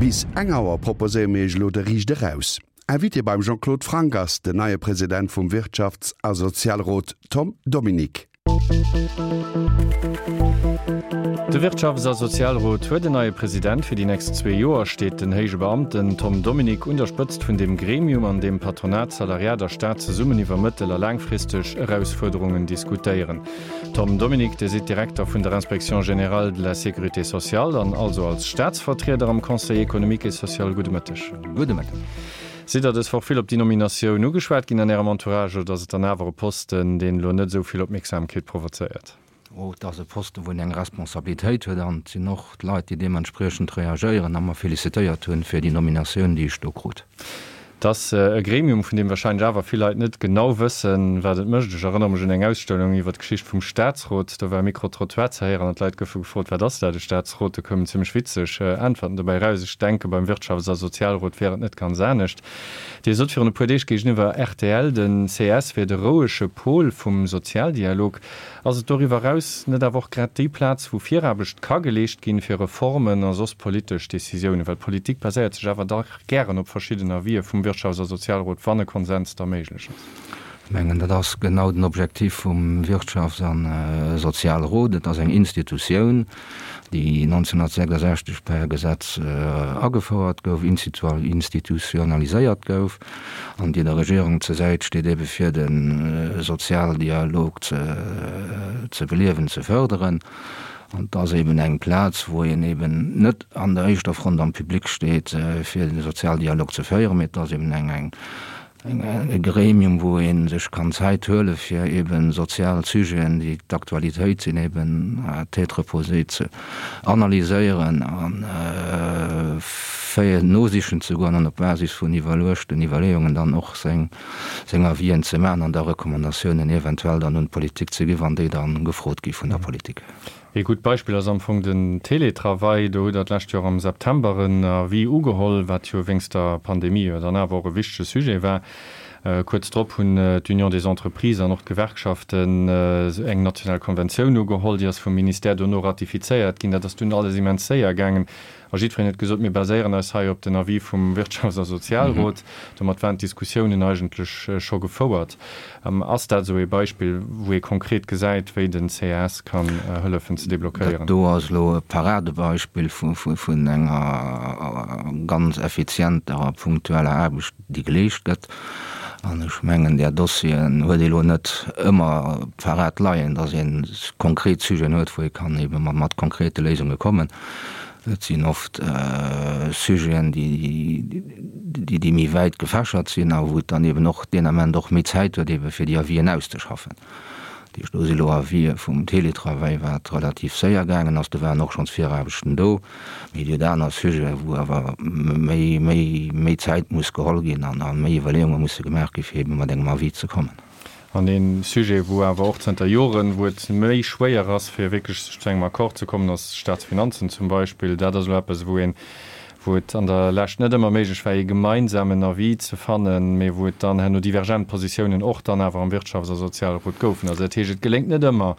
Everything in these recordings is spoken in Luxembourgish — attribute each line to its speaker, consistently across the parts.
Speaker 1: Bis eng Auer proposéiere mir Iech elo de Riicht Eraus. Invité beim Jean-Claude Franck ass den neie President vum Wirtschafts a Sozialrot Tom Dominique.
Speaker 2: De Wirtschafts a Sozialrot huet en neie President. Fir déi nächst zwee Joer steet den héije Beamten Tom Dominique un der Spëtzt vun deem Gremium, an deem Patronat, Salariat a Staat zesummen iwwer mëttel a laangfristeg Erausfuerderungen diskutéieren. Tom Dominique, Dir sidd Direkter vun der Inspection générale de la sécurité sociale an also als Staatsvertrieder am Conseil économique et social. Gudde Mëtteg.
Speaker 3: Gudde Mëtteg.
Speaker 2: Sidd Der dës Woch vill op déi Nominatioun ugeschwat ginn an Ärem Entourage oder ass et dann awer e Posten, deen elo net esou vill Opmierksamkeet provozéiert?
Speaker 3: Oh, et ass e Posten, wou een eng Responsabilitéit huet an et sinn och d'Leit, déi deementspriechend reagéieren a mer felicitéiert hunn fir déi Nominatioun, déi ech do krut.
Speaker 2: Et ass e Gremium, vun deem wahrscheinlech awer vill Leit net genau wëssen, wat et mécht. Ech erënnere mech un eng Ausstellung iwwer d'Geschicht vum Staatsrot. Do war e Micro-trottoir ze héieren an d'Leit goufe gefrot, Wat ass dat, e Staatsrot? Do koumen zimmlech witzeg Äntwerten dobäi eraus. Ech denke beim Wirtschafts a Sozialrot wär et net ganz anescht. Dir sot virun e puer Deeg géigeniwwer rtl, den ces wier de rouege Pol vum Sozialdialog. Ass et doriwwer eraus net awer och grad déi Plaz, wou Viraarbecht ka geleescht ginn, fir Reformen a soss politesch Decisiounen? Well Politik baséiert sech awer dach gären op verschidden Avisë vum Wirtschafts a Sozialrot, wann e Konsens da méiglech ass.
Speaker 3: Ech mengen, dat ass genau den Objektiv vum Wirtschafts a Sozialrot. Et ass eng Institutioun, déi 1966 per Gesetz agefouert gouf, institutionaliséiert gouf an déi der Regierung zur Säit steet, ebe fir de Sozialdialog ze beliewen, ze fërderen. An et ass eben eng Plaz, wou een eben net an der éischter Front am Public steet, fir de Sozialdialog ze féieren, mee et ass eben eng, eng, e Gremium, wou ee sech kann Zäit huele fir eben sozial Sujeten, déi d'Aktualitéit sinn, eben à tête reposée ze analyséieren a fir nosichen ze goen an op Basis vun iwwerluechten Iwwerleeungen dann och seng, seng Avisen ze maachen an da Recommandatiounen eventuell dann un d'Politik ze ginn, wann déi da gefrot gi vun der Politik.
Speaker 2: Ee gutt Beispill ass am Fong den Télétravail. Do hutt Der d'lescht Joer am September en Avis ugeholl, wat jo wéinst der Pandemie jo dann awer och e wichtege Sujet war. Kuerz drop hunn d'Union des Entreprises an och d'Gewerkschaften eng national Konventioun ugeholl. Déi ass vum Ministère dono ratifizéiert ginn. Dat ass dunn alles immens séier gaangen. A jiddwereen huet gesot, mir baséieren eis hei op den Avis vum Wirtschafts a Sozialrot. Domat waren d'Diskussiounen eigentlech scho gefouert. Ass dat esou ee Beispill, wou ee konkret gesäit, wéi den CAS kann hëllefen ze deblockéieren?
Speaker 3: Dat do ass elo e Paradebeispill vun enger ganz effizienter a punktueller Aarbecht, déi geleescht gëtt. An ech mengen, där Dossieren huet ee elo net ëmmer parat leien, datt ee konkret Sujeten huet, wou ee kann ebe mat konkrete Léisunge kommen. Et sinn oft Sujeten, déi méi wäit gefächert sinn a wou et dann eben och deen Ament och méi Zäit huet, ebe fir déi Avisen auszeschaffen. Dat heescht, do si lo Avisë vum Télétravail, wat relativ séier gaangen ass. Do waren och schonns Viraarbechten do. Mee et gëtt aner Sujeten, wou awer méi, méi, méi Zäit muss geholl ginn an méi Iwwerleeunge musse gemaach gi fir ebe mat engem Avis ze kommen.
Speaker 2: An ee Sujet, wou awer och zënter Joren, wou et méi schwéier ass, fir wierklech sech zu engem Accord ze kommen, ass d'Staatsfinanzen zum Beispill. Dat ass elo eppes, wou een, wou et an der Lescht net ëmmer méiglech war, ee gemeinsamen Avis ze fannen, mee wou et dann herno divergent Positiounen och dann awer am Wirtschafts a Sozialrot goufen. Also dat heescht, et geléngt net ëmmer,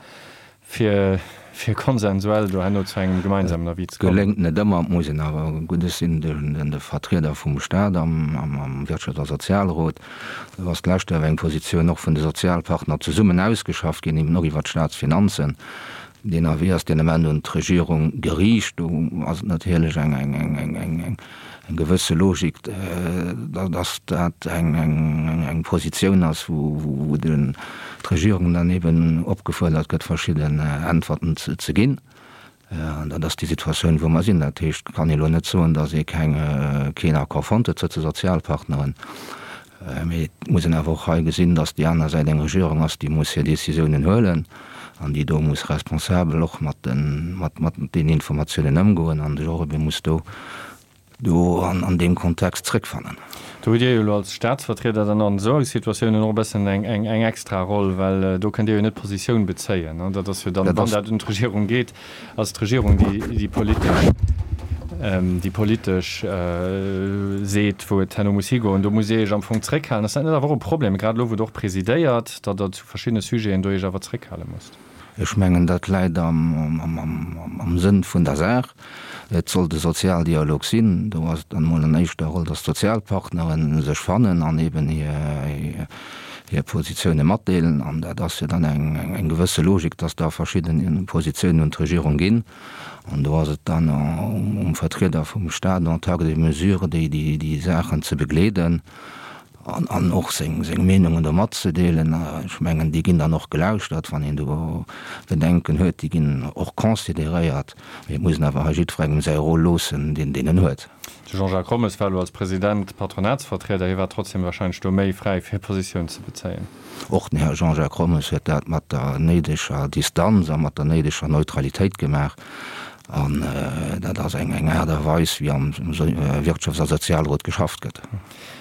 Speaker 2: fir fir konsensuell do herno zu engem gemeinsamen Avis ze
Speaker 3: kommen. Geléngt net ëmmer, et muss een awer, gutt, ech sinn de Vertrieder vum Stat am Wirtschafts a Sozialrot, do ass d'lescht Joer eng Positioun och vun de Sozialpartner zesummen ausgeschafft ginn, eben och iwwert d'Statsfinanzen. Deen Avis ass deen Ament un d'Regierung geriicht. Do ass et natierlech eng eng gewësse Logik, dass dat eng Positioun ass, wou d'Regierung dann eben opgefuerdert gëtt, verschidden Äntwerten ze ginn. An dat ass déi Situatioun, wou mer sinn. Dat heescht, et kann ee elo net soen, dass ee keen Accord fonnt huet tëscht de Sozialpartneren. Mee et muss een awer och hei gesinn, dass déi aner Säit eng Regierung ass, déi muss hir Décisiounen huelen an déi do muss responsabel och mat deenen Informatiounen ëmgoen an sech och ebe muss do an deem Kontext zrëckfannen.
Speaker 2: Do hutt Dir jo elo als Staatsvertrieder dann an esou Situatiounen och e bëssen eng extra Roll, well do kënnt Dir jo net Positioun bezéien. Dat ass jo dann, wann dat un d'Regierung geet, Ass d'Regierung, déi déi politesch, déi politesch seet, wou et herno muss higoen. Do musst Dir Iech am Fong zréckhalen. Ass dat net awer och e Problem, grad elo wou Der och presidéiert, datt Der zu verschiddene Sujeten do Iech awer zréckhale musst?
Speaker 3: Ech mengen, dat läit am Sënn vun der Saach. Et soll de Sozialdialog sinn. Do ass et dann emol an éischter Roll, datt d'Sozialpartnere sech fannen an eben hir Positioune matdeelen. An dat ass jo dann eng gewësse Logik, datt da verschidde Positiounen un d'Regierung ginn. An do ass et dann um Vertrieder vum Stat en tant que mesure, déi Saachen ze begleeden. An och seng Meenungen do matzedeelen. Ech mengen, déi ginn dann och gelauschtert, wann een do Bedenken huet. Déi ginn och consideréiert. Mee et muss een awer hei jiddwerengem säi Rôle loossen, deen en huet.
Speaker 2: De Jean-Jacques Rommes war elo als President Patronatsvertrieder. Hie war trotzdem wahrscheinlech do méi fräi, fir Positioun ze bezéien.
Speaker 3: Och den Här Jean-Jacques Rommes huet dat mat der néideger Distanz a mat der néideger Neutralitéit gemaach. An dat ass eng Aart a Weis, wéi am Wirtschafts a Sozialrot geschafft gëtt.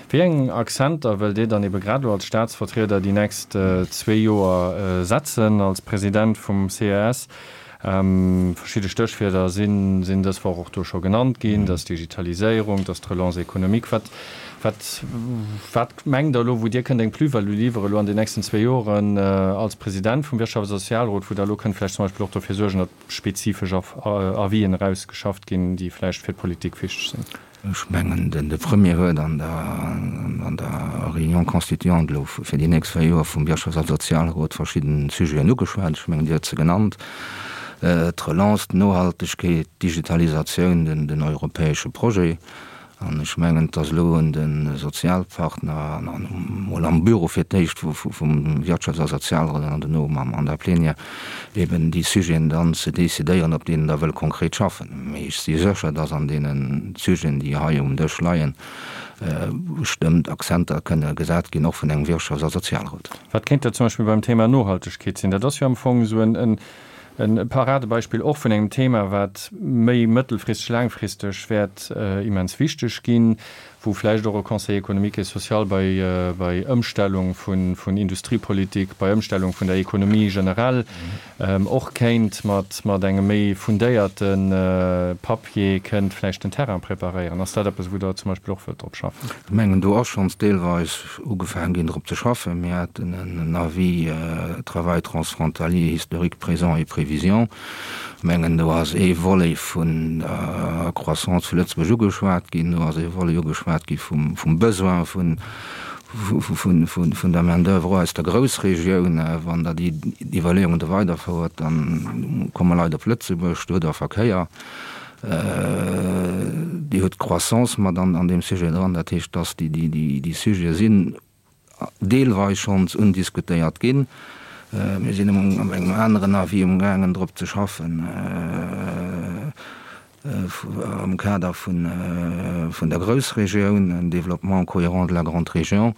Speaker 2: Wéi eng Accenter wëllt Dir dann ebe grad elo als Staatsvertrieder déi nächst zwee Joer setzen als President vum ces? Verschidde Stéchwierder sinn dës Woch och do scho genannt ginn, dat ass d'Digitaliséierung, dat ass d'Relance économique. Wat, wat, wat mengt Der elo, wou Dir kënnt eng Plus-value liwwere elo an den nächsten zwee Joren als President vum Wirtschafts a Sozialrot, wou Der elo kënnt vläicht zum Beispill och dofir suergen, datt spezifesch Avisen erausgeschafft ginn, déi vläicht fir d'Politik wichteg sinn?
Speaker 3: Ech mengen, de Premier huet an der Réunion constituante elo fir déi nächst 4 Joer vum Wirtschafts a Sozialrot verschidden Sujeten ugeschwat. Ech mengen, Dir hutt se genannt, d'Relance, d'Nohaltegkeet, d'Digitalisatioun, den europäesche Projet. An ech mengen, et ass elo un de Sozialpartner an emol am Büro fir d'éischt vum Wirtschafts a Sozialrot an duerno an der Plénière, eben déi Sujeten dann ze decidéieren, op deenen Der wëllt konkret schaffen. Mee ech si sécher, dass an deene Sujeten, déi hei um Dësch leien, bestëmmt Akzenter kënne gesat ginn, och vun engem Wirtschafts a Sozialrot.
Speaker 2: Wat kéint dat zum Beispill beim Thema Nohaltegkeet sinn? Dat ass jo am Fong esou e Paradebeispill och vun engem Thema, wat méi mëttelfristeg, laangfristeg wäert immens wichteg ginn. wou vläicht och e Conseil économique et social bei, bei Ëmstellung vun, vun Industriepolitik, bei Ëmstellung vun der Économie generell och kéint mat, mat engem méi fundéierte Papier kënnt vläicht den Terrain preparéieren. Ass dat eppes, wou Der zum Beispill och wëllt drop schaffen?
Speaker 3: Ech mengen, do ass schonns deelweis ugefaangen ginn, drop ze schaffen. Mir haten en Avis Travail transfrontalier, historique, présent et prévisions. Mengen, do ass ee Volet vun der Croissance vu Lëtzebuerg ugeschwat ginn, do ass ee Volet ugeschwat gi vum Besoin vun der Main d'oeuvre och aus der Groussregioun. Wann Der déi Iwwerleeungen do weiderfouert, da komme Leit op Lëtzebuerg, do hutt Der Verkéier, Dir hutt d'Croissance mat an deem Sujet dran. Dat heescht, dass déi Sujete sinn deelweis schonns undiskutéiert ginn. Mir sinn an engem aneren Avis umgaangen drop ze schaffen am Kader vun der Groussregioun, un développement cohérent de la grande région.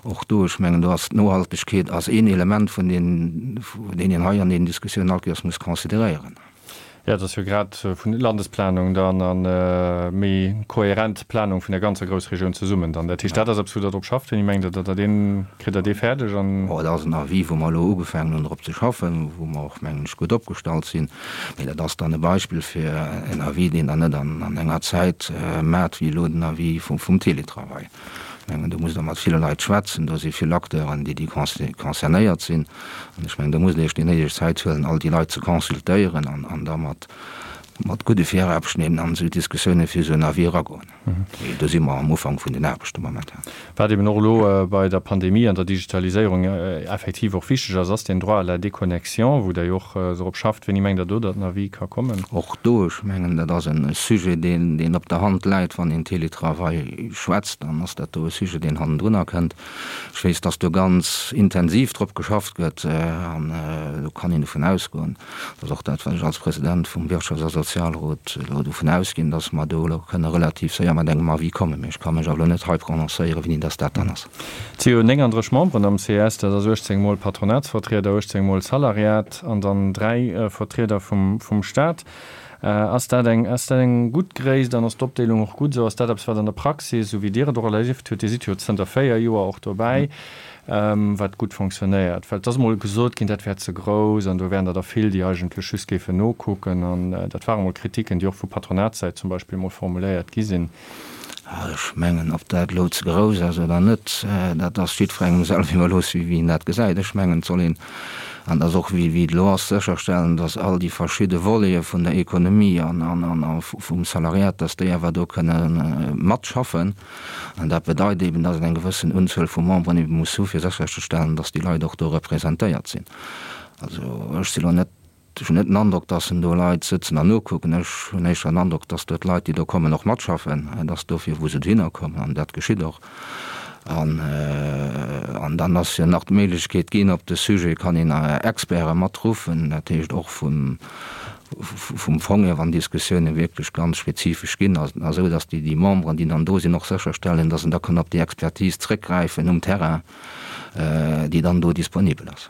Speaker 3: Och do, ech mengen, do ass d'Nohaltegkeet ass een Element vun deen een hei an deenen Diskussiounen all Kéiers muss consideréieren.
Speaker 2: Jo, et ass jo grad vun Landesplanung dann a méi kohärent Planung vun der ganzer Groussregioun zesummen dann. Dat heescht, dat ass eppes, wou Der drop schafft. Wéini mengt Der, datt Der deen, kritt Der dee fäerdeg
Speaker 3: an? Bon, dat ass en Avis, wou mer elo ugefaangen hunn drop ze schaffen, wou mer och, mengen ech, gutt opgestallt sinn. Mee dat ass dann e Beispill fir en Avis, deen Der net an enger Zäit maacht, wéi elo den Avis vum Télétravail. Ech mengen, do musst Der mat ville Leit schwätzen, do si vill Acteuren, déi concernéiert sinn. An ech mengen, do musst Der Iech déi néideg Zäit huelen, all déi Leit ze consultéieren an da mat gudde Viraarbechten eben an esou Diskussiounen fir esou en Avis eragoen. Mee do si mer am Ufank vun den Aarbechte momentan.
Speaker 2: Wat eben och elo bei der Pandemie an der Digitaliséierung effektiv och wichteg ass, ass den Droit à la déconnexion, wou Der jo och drop schafft. Wéini mengt Der do, datt den Avis ka kommen?
Speaker 3: Och do, ech mengen, dat ass e Sujet, deen op der Hand läit. Wann een Télétravail schwätzt, dann ass dat do e Sujet, deen hannendrunner kënnt. Ech weess, datt do ganz intensiv drop geschafft gëtt an do kann een dovun ausgoen, Dat ass och dat, wat ech als President vum Wirtschafts a Sozialrot elo dovun ausginn, dass mer do elo kënne relativ séier mat engem Avis kommen. Mee ech ka mech awer elo net hei prononcéieren, wéini dass dat dann ass.
Speaker 2: Et si jo 39 Memberen am ces, dat ass 18 mol Patronatsvertrieder, 18 mol Salariat an dann 3 Vertrieder vum Staat. Ass dat eng, ass dat eng gutt Gréisst an ass d'Opdeelung och gutt esou? Ass dat eppes, wat an der Praxis, esou wéi Dir et och erlieft hutt, Dir sidd jo zënter 4 Joer och dobäi, wat gutt fonctionnéiert? Well et ass emol gesot ginn, dat wär ze grouss an do wären der der vill, déi eigentlech just géifen nokucken. An dat ware mol Kritiken, déi och vu Patronatssäit zum Beispill mol formuléiert gi sinn.
Speaker 3: Ech mengen, ob dat elo ze grouss ass oder net, dat ass jiddwerengem selwer iwwerlooss, wéi en dat gesäit. Ech mengen, et soll een. An dass och, wéi et elo ass, sécherstellen, dass all déi verschidde Volete vun der Ekonomie an vum Salariat, dass déi awer do kënne matschaffen. An dat bedeit eben, dass een eng gewëssen Unzuel vu Memberen ebe muss hu fir sécherzestellen, dass déi Leit och do representéiert sinn. Also ech si lo net, ech hunn net den Androck, dass en do Leit sëtzen an nokucken. Ech hunn éischter den Androck, dass do d'Leit, déi do kommen, och matschaffen. Et ass dofir, wou se dohinner kommen, an dat geschitt och. An, an dann ass jo nach d'Méiglechkeet ginn, op de Sujet kann een Experte matruffen, dat heescht och vum, vum Fong hier, wann Diskussioune wierklech ganz spezifesch ginn, esou datt déi, déi Memberen, déi dann do sinn, och sécherstellen, datt en da kann op déi Expertise zrëckgräifen um Terrain, déi dann do disponibel ass.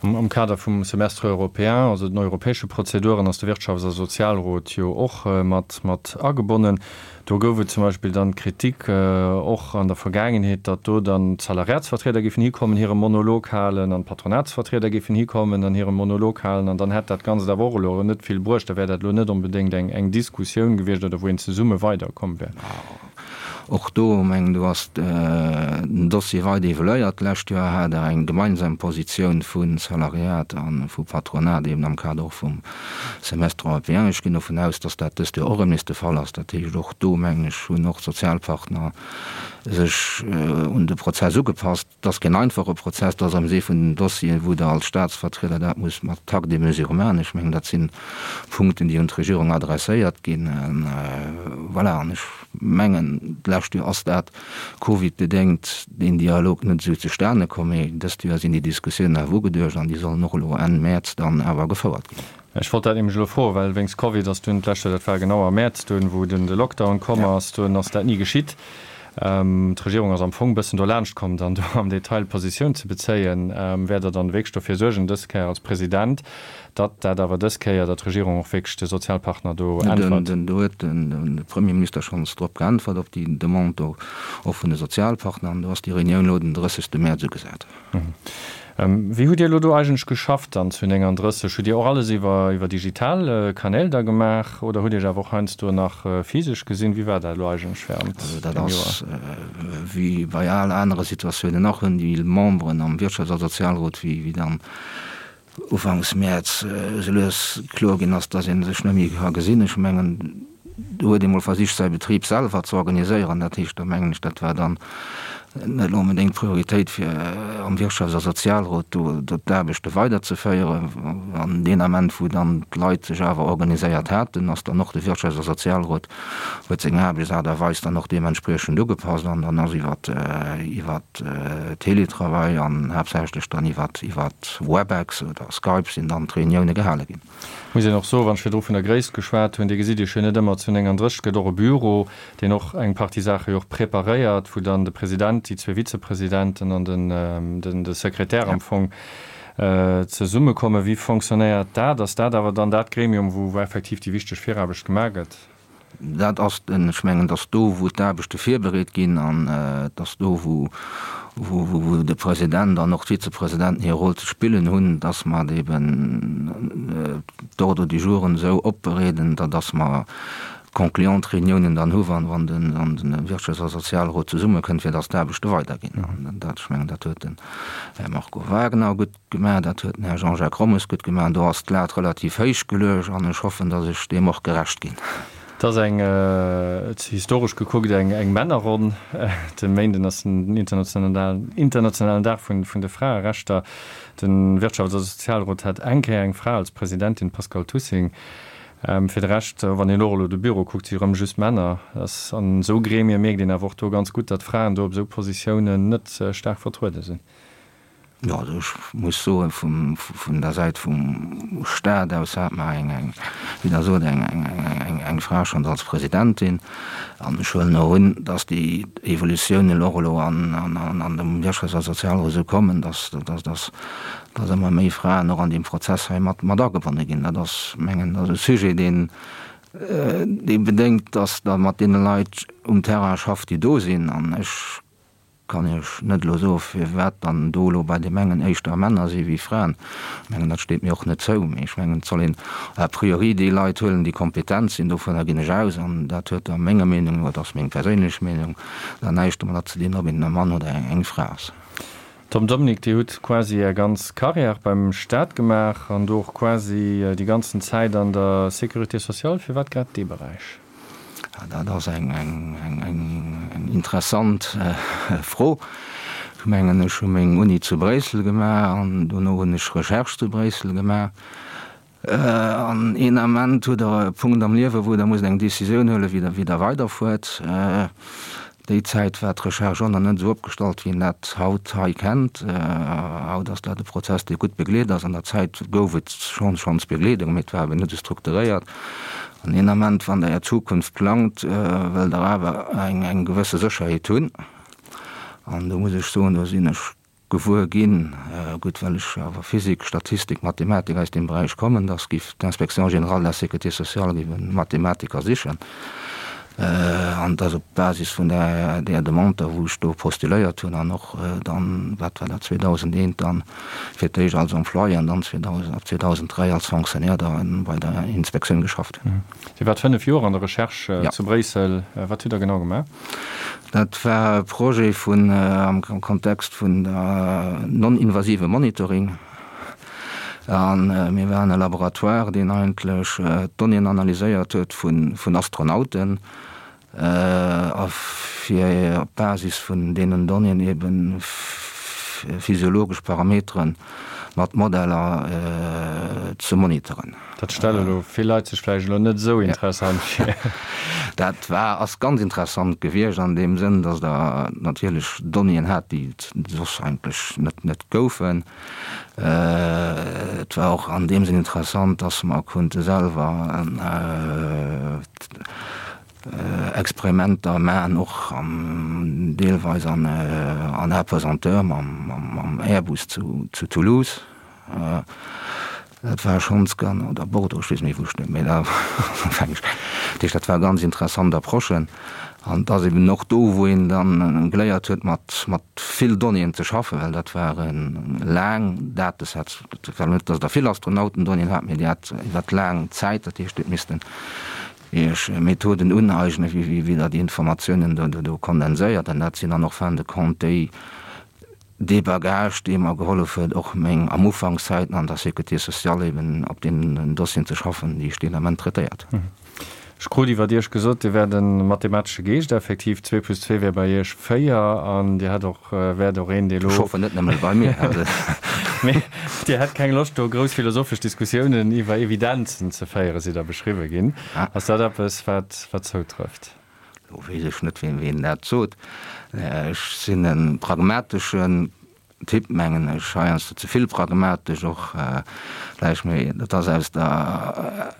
Speaker 2: Am Kader vum Semestre européen, also den europäesche Prozeduren, ass de Wirtschafts a Sozialrot jo och mat mat agebonnen. Do gouf et zum Beispill dann d'Kritik och an der Vergaangenheet, datt do dann d'Salariatsvertrieder géifen hikommen, hire Monolog halen an d'Patronatsvertrieder géifen hikommen an hire Monolog halen an dann hätt dat Ganzt awer och elo net vill bruecht. Da wär dat elo net onbedéngt eng eng Diskussioun gewiescht oder wou een zesumme weiderkomm wär.
Speaker 3: Och do, mengen, do ass den Dossier weider evoluéiert. D'lescht Joer hat Der eng gemeinsam Positioun vu Salariat a vu Patronat, eben am Kader och vum Semestre européen. Ech ginn dovun aus, dass dat dëst Joer och erëm nees de Fall ass. Dat heescht, och do, mengen ech, hunn och d'Sozialpartner sech un de Prozess ugepasst. Et ass keen einfache Prozess, et ass am See vun den Dossieren, wou Der als Statsvertrieder dat musst mat Takt et mesure maachen. Ech mengen, dat si Punkten, déi un d'Regierung adresséiert ginn. Voilà, an ech mengen, d'lescht Joer ass dat covidbedéngt deen Dialog net esou zustane komm, mee dëst Joer sinn déi Diskussiounen awer ugeduecht an déi sollen och elo Enn Mäerz dann awer gefouert ginn.
Speaker 2: Ech wollt dat nämlech elo froen, well wéinst Covid ass dunn d'lescht Joer, dat war genau am Mäerz dunn, wou dunn de Lockdown komm ass, dunn ass dat ni geschitt. D'Regierung ass am Fong e bëssen dolaanscht komm, dann do am Detail Positioun ze bezéien. Wäert Der dann wierklech dofir suergen, dës Kéier als President, datt dat awer dës Kéier, datt d'Regierung och wierklech de Sozialpartner do äntwert?
Speaker 3: Do huet de Premierminister schonns drop geäntwert, op déi Demande do och vun de Sozialpartner, an do ass déi Reunioun elo den 30. Mäerz ugesat.
Speaker 2: Wéi hutt Dir elo do eigentlech geschafft dann zu 39? Hutt Dir och alles iwwer iwwer digital Kanäl da gemaach oder hutt Iech awer och heiansdo nach physesch gesinn? Wéi war dat elo eigentlech während
Speaker 3: Also dat deem Joer? ass wéi bei al anere Situatiounen och, hunn déi Memberen am Wirtschafts a Sozialrot, wéi wéi dann Ufanks Mäerz esou lues kloer ginn ass, dass ee sech net méi ka gesinn. Ech mengen, do huet ee mol versicht, säi Betrib selwer ze organiséieren. Dat heescht, da mengen ech, dat war dann net onbedéngt d'Prioritéit, fir am Wirtschafts a Sozialrot do d'Aarbechte weiderzeféieren. An deen Ament, wou dann d'Leit sech awer organiséiert haten, ass dann och de Wirtschafts a Sozialrot huet seng Aarbechtsaart a Weis dann och deementspriechend ugepasst an dann ass iwwer iwwer Teletravail an haaptsächlech dann iwwer iwwer Webex oder Skype sinn dann d'Reunioune gehale ginn.
Speaker 2: Muss een och soen, wann ech virdru vun der Gréisst geschwat hunn, Dir gesitt Iech jo net ëmmer zu 39, et gëtt och e Büro, deen och eng Partie Saache jo och preparéiert, wou dann de President, déi zwee Vizepresidenten an den de Sekretär am Fong zesummekommen. Wéi fonctionnéiert dat? Ass dat awer dann dat Gremium, wou effektiv déi wichteg Viraarbecht gemaach gëtt?
Speaker 3: Dat ass den, ech mengen, et ass do, wou d'Aarbechte virbereet ginn an et ass do, wou, wou de President an och d'Vizepresidenten hir Roll ze spillen hunn, dass mer eben d'Ordre du jouren esou opbereeden, da dass mer concluant Reuniounen dann hu wann, wann den, wann de Wirtschafts a Sozialrot zesummekënnt, fir dass d'Aarbechte weiderginn. An dat, ech mengen, dat huet den Här Marco Wagner gutt Gemaach, dat huet den Här Jean-Jacques Rommes gutt gemaach. Do ass d'Lat relativ héich geluecht an ech hoffen, datt ech deem och gerecht ginn.
Speaker 2: Et ass eng, historesch gekuckt, eng Männerronn. De Méinden ass den internationalen Dag vun de Fraerechter. De Wirtschafts a Sozialrot hat eng Kéier eng Fra als Presidentin, d'Pascale Tussing. Fir de Rescht, wann een och elo de Büro kuckt, si rëm just Männer. An esou Gremie mierkt een awer och do ganz gutt, datt Fraen do op esou Positiounen net staark vertruede sinn.
Speaker 3: Jo, also ech muss soen, vum, vun der Säit vum Stat aus hat mer eng, eng, wéi Der sot, eng, eng, eng, eng Fra schonns als Presidentin. An ech huelen och un, dass déi Evolutiounen och elo an, an, an, an dem Wirtschafts a Sozialrot esou kommen, dass, dass, dass, dass ëmmer méi Fraen och an deem Prozess hei mat, mat agebonne ginn. Dat ass, mengen, dat ass e Sujet, deen, dee bedéngt, dass Der mat deene Leit um Terrain schafft, déi do sinn. An ech Kann Iech net elo soe firwat dann do elo bei deem engen éischter Männer si wéi Fraen. Ech mengen dat steet mir och net zou, mee ech mengen et soll een a priori déi Leit huelen déi kompetent sinn, dovunner ginn ech aus an dat huet da menger Meenung no, dat ass meng perséinlech Meenung, dann näischt domadder ze dinn ob een e Mann oder eng Fra ass.
Speaker 2: Tom Dominique, Dir hutt quasi Är ganz Carrière beim Staat gemaach an do och quasi déi ganzen Zäit an der Sécurité sociale. Firwat grad dee Beräich?
Speaker 3: Dat ass eng interessant Fro. Ech mengen, ech hu meng Uni zu Bréissel gemaach an dono hunn ech Recherche zu Bréissel gemaach. An een Ament hutt Der e Punkt am Liewen, wou Der musst eng Décisioun huelen, wéi Der, wéi Der weiderfuert. Déi Zäit war d'Recherche och nach net esou opgestallt, wéi een dat haut hei kennt. Haut ass dat e Prozess, dee gutt begleet ass. An der Zäit gouf et schonn, schonns Begleedung, mee et war eben net esou strukturéiert. An een Ament, wann Der Är Zukunft plangt, wëllt Der awer eng, eng gewësse Sécherheet hunn. An do muss ech soen, do sinn ech gewuer ginn, gutt, well ech awer Physik, Statistik, Mathematik aus deem Beräich kommen, dass giff d'Inspection générale de la sécurité sociale giff e Mathematiker sichen. An dass op Basis vun där, där Demande da, wou ech do postuléiert hunn an och dann, wat war dat, 2001 dann fir d'éischt als Employé an dann 2000, ab 2003 als Fonctionnaire da bei der Inspektioun geschafft hunn.
Speaker 2: Dir waart 5 Joer an der Recherche zu Bréissel. Wat hutt Der genau gemaach?
Speaker 3: Dat war e Projet vun, am Kontext vun der non-invasive Monitoring. A mir waren e Laboratoire, deen eigentlech d'Donnéeën analyséiert huet vun Astronauten a fir op Basis vun deenen Donnéeën ebe physiologesch Parameteren mat Modeller ze monitoren.
Speaker 2: Dat stelle elo vill Leit sech vläicht elo net esou interessant vir.
Speaker 3: Dat war, ass ganz interessant gewiescht an deem Sënn, datt Der natierlech Donnéeën hat, déi et soss eigentlech net, net goufen. Et war och an deem Sënn interessant, datt mer konnte selwer Experimenter maachen, och deelweis an Apesanteur mam Airbus zu Toulouse. Dat war schonns gan, oder Bordeaux, ech weess net méi wou ech, mee da fänk ech, dat heescht dat war ganz interessant Approche an et ass eben och do wou een dann geléiert huet mat mat vill Donnéeën ze schaffen, well dat ware laang Datesets, et war net datt der vill Astronautendonnéeën hat, mee Dir hat iwwert laang Zäit, dat heescht Dir hutt missten Iech Methoden uneignen, wéi wéi Der déi Informatiounen do do kondenséiert an dat sinn dann och fin de compte déi Dee Bagage, dee mer gehollef huet, och meng am Ufankszäiten an der Sécurité sociale eben op deenen Dossieren ze schaffen, déi ech deen Ament traitéiert hunn.
Speaker 2: Ech krut iwwert Iech gesot, Dir wäert e mathematesche Geescht, effektiv, zwee plus zwee wär bei Iech véier an Dir hätt och, wäert och een, dee
Speaker 3: lo. Ech hoffen net nëmme bei mir.
Speaker 2: Mee Dir hätt keng Loscht, do grouss philosophesch Diskussiounen iwwer Evidenzen ze féieren, sidd Der beschriwwe ginn. Ass dat eppes, wat, wat zoutrëfft?
Speaker 3: Lo weess ech net, wien dat sot. Ech sinn e pragmateschen Typ, mengen ech, heiansdo ze vill pragmatesch och vläicht, mee dat ass aus der,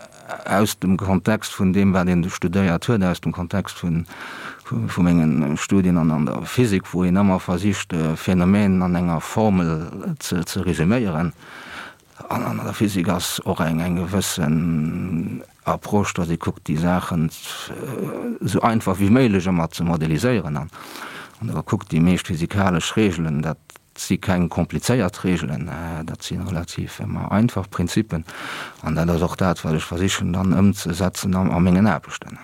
Speaker 3: aus dem Kontext vun deem, wat een studéiert huet, aus dem Kontext vun, vu mengen Studien an der Physik, wou een ëmmer versicht, Phänomenen an enger Formel ze resuméieren. An an der Physik ass och eng eng gewëssen Approche, datt ee kuckt, déi Saachen esou einfach wéi méiglech ëmmer ze modeliséieren. An wann Der kuckt, déi meescht physikalesch Reegelen, dat si keng komplizéiert Reegelen, dat si relativ ëmmer einfach Prinzippen. An dat ass och dat, wat ech versichen dann ëmzesetzen a mengen Aarbechten.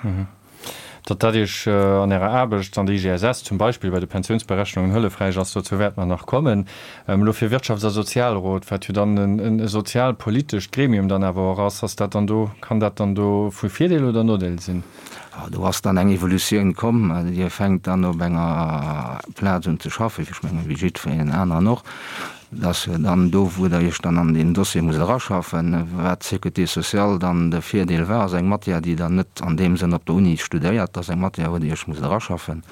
Speaker 2: Datt dat Iech an Ärer Aarbecht an der IGSS zum Beispill bei de Pensiounsberechnungen hëllefräich ass, dozou wäerte mer nach kommen. Elo fir Wirtschafts a Sozialrot, wat jo dann e sozialpolitescht Gremium dann awer och ass, ass dat dann do, kann dat dann do vu Virdeel oder Nodeel sinn?
Speaker 3: Do ass dann eng Evolutioun komm. Dir fänkt dann op enger Plaz un ze schaffen, ech mengen wéi jiddwereen aneren och. Et ass jo dann do, wou Der Iech dann an deen Dossier musst eraschaffen. Wat d'Sécurité sociale dann de Virdeel war, ass eng Matière, déi Der net an deem Sënn op der Uni studéiert. Dat ass eng Matière, wou Der Iech musst eraschaffen.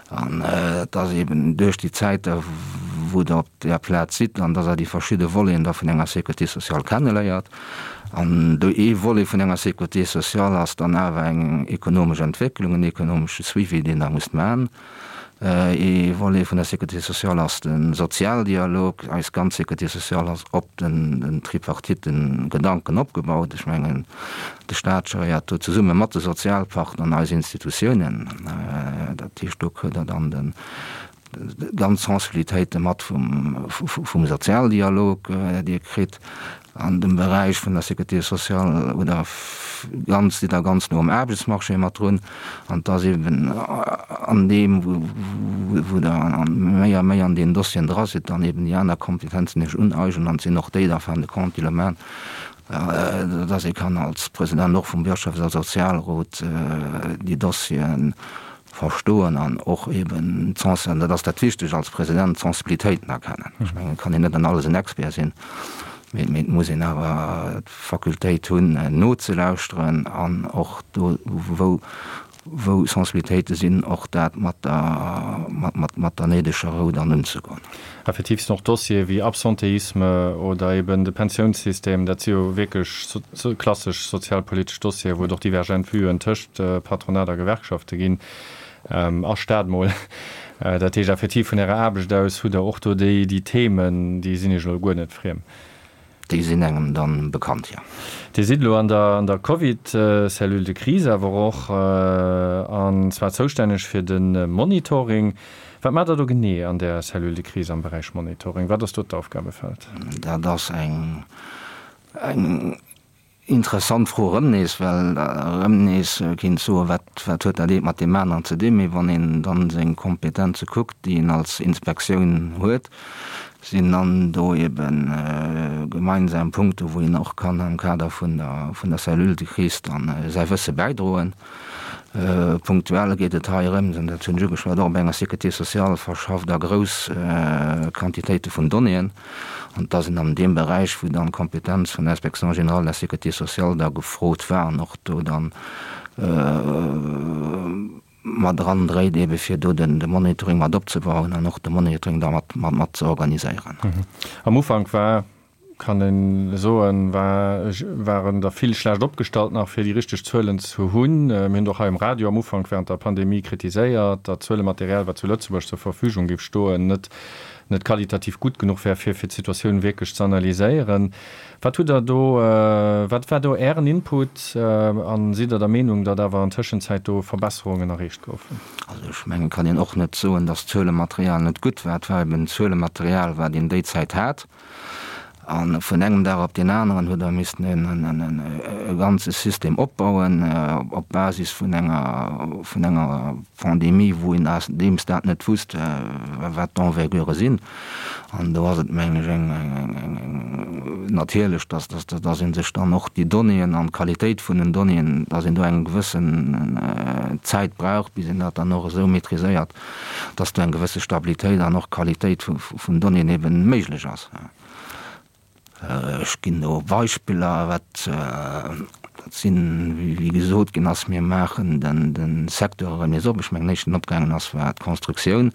Speaker 3: An et ass eeben duerch déi Zäit, wou Der op där Plaz sidd, an dass Der déi verschidde Voleten da vun enger Sécurité sociale kenneléiert. An do ee Volet vun enger Sécurité sociale ass dann awer eng ekonomesch Entwécklung, en ekonomesche Suivi, deen Der musst maachen. Ee Volet vun der Sécurité sociale ass de Sozialdialog. Eis ganz Sécurité sociale ass op den Tripartite-Gedanken opgebaut. Ech mengen, de Staat geréiert do zesumme mat de Sozialpartner an eis Institutiounen. Dat heescht, do kritt Der dann den. Ganz Sensibilitéite mat vum Sozialdialog, déi e kritt an dem Beräich vun der Sécurité sociale oder ganz, sidd Der ganz no um Aarbechtsmarché mat drun. An et ass eben an deem, wou Der méi a méi an deenen Dossieren dra sidd, dann eben déi aner Kompetenzen Iech uneignen an et sinn och déi da fin de compte, déi elo maachen, dass ee kann als President och vum Wirtschafts a Sozialrot déi Dossieren verstoen an och eben d'Sensi-, dat ass dat Wichtegt als President, d'Sensibilitéiten erkennen. Ech mengen, et kann een net an alles en Expert sinn, mee et muss een awer d'Fakultéit hunn nozelauschteren an och do, wou, wou Sensibilitéite sinn, och dat mat der, mat, mat der néideger Rou dann unzegoen.
Speaker 2: Effektiv sinn och Dossiere wéi Absentéisme oder eben de Pensiounssystem, dat si jo wierklech klassesch sozialpolitesch Dossieren, wou et och divergent Vuen tëscht Patronat a Gewerkschafte ginn, a Staat mol. Dat heescht effektiv, vun Ärer Aarbecht aus hutt Der och do déi Themen, déi sinn Iech elo guer net friem.
Speaker 3: Déi sinn engem dann bekannt, jo.
Speaker 2: Dir sidd elo an der an der Covid-Cellule de crise awer och, an zwar zoustänneg fir de Monitoring. Wat maacht Der do genee an där Cellule de crise am Beräich Monitoring? Wat ass do d'Aufgabefeld?
Speaker 3: Dat ass eng eng interessant Fro erëm nees, well erëm nees kinnt soen, wat wat huet dat eent mat deem aneren ze dinn? Mee wann een dann seng Kompetenze kuckt, déi een als Inspektioun huet, sinn dann do ebe gemeinsam Punkte wou een och kann am Kader vun der vun der Cellule de crise dann säi Wësse bäidroen. Punktuell geet et hei erëm, an dat hunn ech ugeschwat, och op enger Sécurité sociale verschafft a grouss Quantitéite vun Donnéeën. An et ass een an deem Beräich, wou dann d'Kompetenz vun der Inspection générale de la Sécurité sociale da gefrot war an och do dann mat erandréit, ebe fir do de Monitoring mat opzebauen an och de Monitoring da mat mat ze organiséieren.
Speaker 2: Am Ufank war, kann een soen, war waren der vill schlecht opgestallt nach, fir déi richteg Zuelen ze hunn. Mir hunn et och hei um Radio am Ufank während der Pandemie kritiséiert, datt d'Zuelematerial, wat zu Lëtzebuerg zur Verfügung géif stoen, net net qualitativ gutt genuch wär, fir fir d'Situatioun wierklech ze analyséieren. Wat hutt Der do, wat war do Ären Input a sidd Der der Meenung, datt awer an Tëschenzäit do Verbesserungen erreecht goufen?
Speaker 3: Also ech mengen, et kann een och net soen, datt d'Zuelematerial net gutt war. Et war eben d'Zuelematerial, wat een déi Zäit hat. A vun engem Dag op deen aneren huet Der missten e ganze System opbauen op Basis vun enger, vun enger Pandemie, wou een deems dat net wusst, wat d'Envergure sinn. An do ass et, mengen ech, eng, eng, eng natierlech, dass, dass, dass ee sech dann och déi Donnéeën an d'Qualitéit vun den Donnéeën, dass een do eng gewëssen Zäit brauch, bis een dat dann och esou maîtriséiert, dass do eng gewësse Stabilitéit an och Qualitéit vun Donnéeën eben méiglech ass. Ech ginn do Beispiller, wat dat sinn, wéi gesot ginn ass, mir maachen de Secteur erëm nees op. Ech mengen, den éischten, deen opgaangen ass, war d'Constructioun.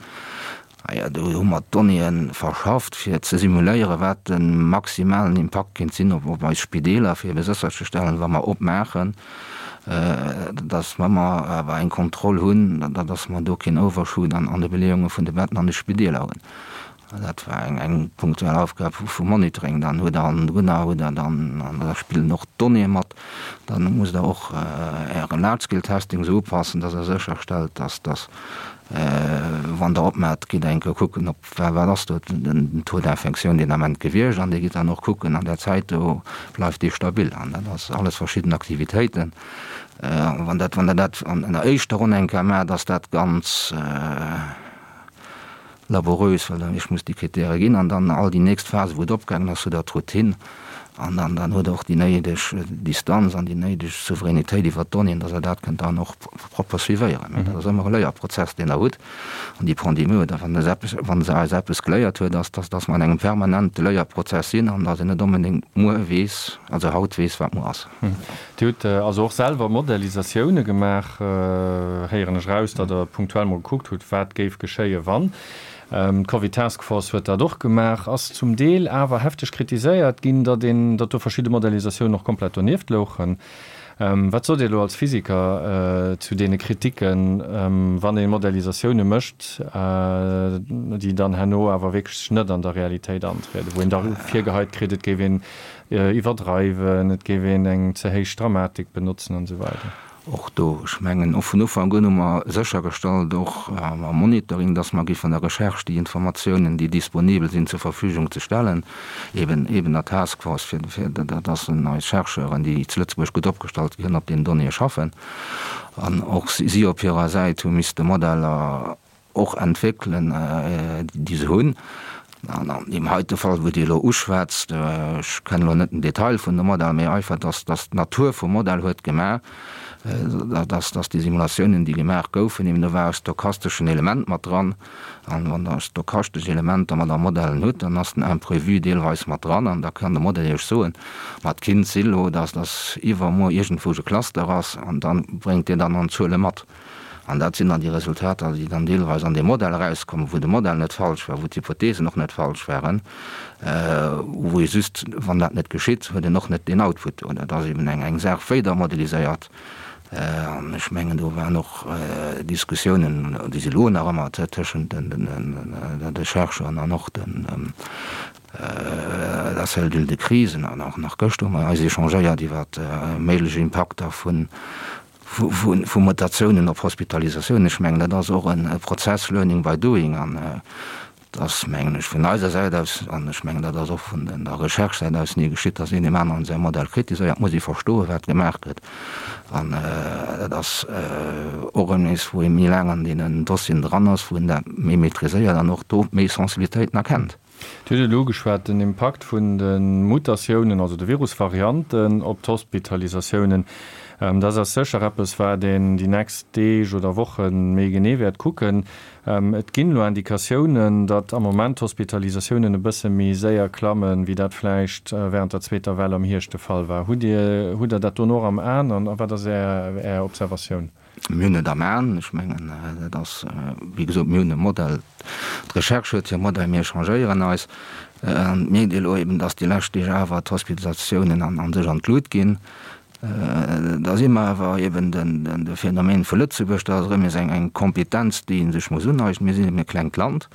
Speaker 3: Ah jo, do hu mer d'Donnéeë verschafft, fir ze simuléieren, wat de maximalen Impakt kéint sinn op eis Spideeler, fir ebe sécherzestellen, wa mer opmaachen, datt mer awer eng Kontroll hunn, datt mer do keen Overshoot an de Beleeunge vun de Betten an de Spideeler hunn. Dat war eng punktuell Aufgab vum Monitoring. Dann huet Der an drënner huet Der dann, an da spillen och d'Donnéeë mat, dann musst Der och Äre Large-Scale-Testing esou upassen, dass Der sécherstellt, dass, dass wann Der opmaacht, gitt Der eng Kéier kucken, ob, wat ass do den Taux d'infection deen Ament gewiescht an Dir gitt dann och kucken an där Zäit do, bleift dee stabil. An dat ass alles verschidden Aktivitéiten. Wann dat, wann Der dat an der éischter Ronn eng Kéier maacht, ass dat ganz, laborieus, well dann ech muss déi Kritäre ginn an dann all déi nächst Phase wou et opgaangen ass, huet Der d'Routine an dann dann huet Der och déi néideg Distanz an déi néideg Souveränitéit iwwert d'Donnéeën, dass Der dat kënnt dann och propper suivéieren. Mä dat ass ëmmer e Léierprozess, deen Der hutt. An déi Pandemie huet, wann se eppes, wa se eis eppes geléiert huet, ass, dass dass mer an engem permanente Léierprozess sinn an dass een net onbedéngt muer weess, also haut weess, wat muer ass.
Speaker 2: Dir hutt also och selwer Modellisatioune gemaach, héieren ech eraus, datt Der punktuell mol gekuckt hutt, wat géif geschéie wann. D'Covid Task Force huet dat och gemaach, ass zum Deel awer hefteg kritiséiert ginn, datt een, datt do verschidde Modellisatiounen och komplett donieft louchen. Wat sot Dir elo als Physiker zu deene Kriticken, wann ee Modellisatioune mécht, déi dann herno awer wierklech net an der Realitéit antrieden, wou een da virgeheit kritt, et géif een iwwerdreiwen, et géif een eng ze héich Dramatik benotzen an esou weider.
Speaker 3: Och do, ech mengen, och vun Ufank un hu mer séchergestallt, och am Monitoring, dass mer géifen der Recherche déi Informatiounen, déi disponibel sinn, zur Verfügung ze stellen, eben eben der Task Force, fir fir dass eis Chercheuren, déi zu Lëtzebuerg gutt opgestallt sinn, op deenen Donnéeë schaffen. An och si op hirer Säit hu misste Modeller och entwéckelen, déi se hunn. An an deem heite Fall, wou Dir elo uschwätzt, ech kennen elo net den Detail vun dem Modell, mee einfach, dass dass d'Natur vum Modell huet gemaach, dass dass déi Simulatiounen, déi gemaach goufen, eben do war e stochasteschen Element mat dran. An wann Der stochastesch Elementer mat am Modellen hutt, dann ass den Imprévu deelweis mat dran an da kann de Modell Iech soen, ma et kinnt si lo, dass dass iwwermuer iergendwou e Cluster ass an da bréngt deen dann an d'Zuele mat. An dat sinn dann déi Resultater, déi dann deelweis an deem Modell erauskommen, wou de Modell net falsch war, wou d'Hypothesen och net falsch waren, wou ee just, wann dat net geschitt, huet een och net deen Output do. Dat ass eben eng Saach, wéi Der modeliséiert. An ech mengen, do waren och Diskussiounen, déi si elo nach ëmmer tëschent de Chercheuren an och den der Cellule de crise. An och nach gëschter hu mer eis échangéiert iwwer méiglech Impakter vun vu Mutatiounen op Hospitalisatiounen. Ech mengen, dat ass och e Prozess, learning by doing, an et ass, mengen ech, vun eiser Säit aus, an ech mengen, dat ass och vun der Recherche-Säit aus ni geschitt, datt een deem aneren säi Modell kritiséiert. Et muss ee verstoen, wat gemaach gëtt, an dat ass och erëm nees, wou ee méi laang an deenen Dossieren dran ass, wou een dat méi maîtriséiert an och do méi Sensibilitéiten erkennt.
Speaker 2: Dir hutt et elo ugeschwat, den Impakt vun de Mutatiounen, also de Virusvarianten op d'Hospitalisatiounen. Dat ass sécher eppes, wat een déi nächst Deeg oder Woche méi genee wäert kucken. Et ginn elo Indikatiounen, datt am Moment d'Hospitalisatiounen e bësse méi séier klammen, wéi dat vläicht wärend der zweeter Well am Hierscht de Fall war. Hutt Dir, hutt Der dat dono och am Aen an wat ass Är Observatioun?
Speaker 3: Mir hunn et am Aen. Ech mengen, dat ass, wéi gesot, mir hunn e Modell, d'Recherche huet hir Modell, mir échangéieren eis. An et mierkt ee elo eben, datt déi lescht Deeg awer d'Hospitalisatiounen a sech an d'Lut ginn. Da si mer awer eben de Phänomen vu Lëtzebuerg, dat ass erëm nees eng Kompetenz, déi ee sech muss uneignen. Mir sinn eben e klengt Land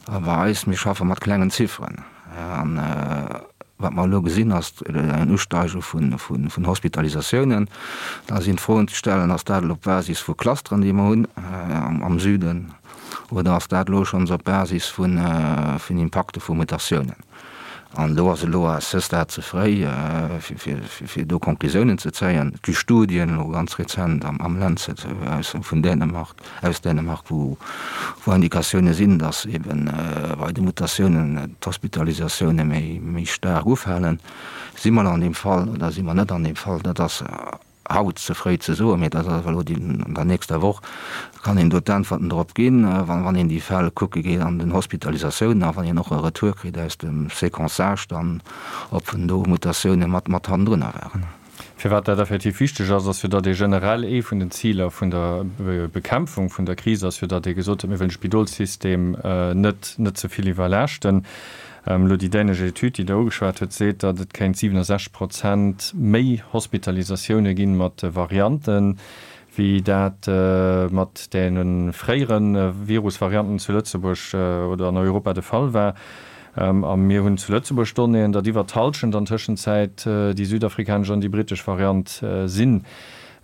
Speaker 3: a bei eis, mir schaffe mat klengen Zifferen. An wat mer elo gesinn, ass en Usteige vun Hospitalisatiounen. Da sinn d'Froen ze stellen, Ass dat elo op Basis vu Clusteren, déi mer hunn am Süden, oder ass dat elo schonns op Basis vun Impakte vu Mutatiounen? An do ass elo à ce stade ze fréi, fir do Conclusiounen ze zéien. Et gi Studien, elo ganz rezent am Lancet vun Dänemark, aus Dänemark, wou Indikatioune sinn, datt ebe bei de Mutatiounen d'Hospitalisatioune méi staark ufalen. Si mer an deem Fall oder si mer net an deem Fall? Dat ass haut ze fréi ze soen, mee dat ass awer elo déi, an der nächster Woch kann een do d'Äntwerten drop ginn, wann een déi Fäll kucke geet an den Hospitalisatiounen a wann een och e Retour kritt aus dem Séquençage dann, ob do Mutatioune mat hannendrunner waren.
Speaker 2: Firwat dat effektiv wichteg ass, ass jo, datt ee generell, ee vun den Ziler vun der Bekämpfung vun der Kris ass jo, datt ee gesot huet, mir wëllen de Spidolssystem net net ze vill iwwerlaaschten. Elo déi dänesch Etüd, déi Der ugeschwat hutt, seet, datt et kéint 67 Prozent méi Hospitalisatioune ginn mat de Varianten, wéi dat mat deene fréiere Virusvarianten zu Lëtzebuerg oder an Europa de Fall war. A mir hunn zu Lëtzebuerg Donnéeën, datt iwwer d'Hallschent an Tëschenzäit déi südafrikanesch an déi brittesch Variant sinn.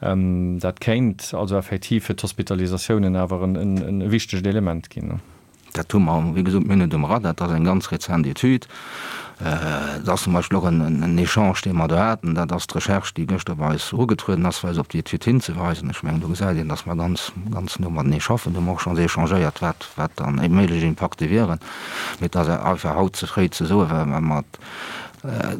Speaker 2: Dat kéint also effektiv fir d'Hospitalisatiounen awer e wichtegt Element ginn.
Speaker 3: Dat hu mer, wéi gesot, mir hunn et um Radar, dat ass eng ganz rezent Etüd. Dat ass zum Beispill och en Echange, dee mer do haten. Dat ass d'Recherche, déi gëschter bei eis erugetrueden ass, fir eis op déi Etüd hinzeweisen. Ech mengen, do gesäit een, datt mer ganz, ganz no matenee schaffen. Do hu mer och schonns échangéiert, wat, wat dann méiglech Impakte wieren. Mee et ass einfach haut ze fréi ze soen, well mer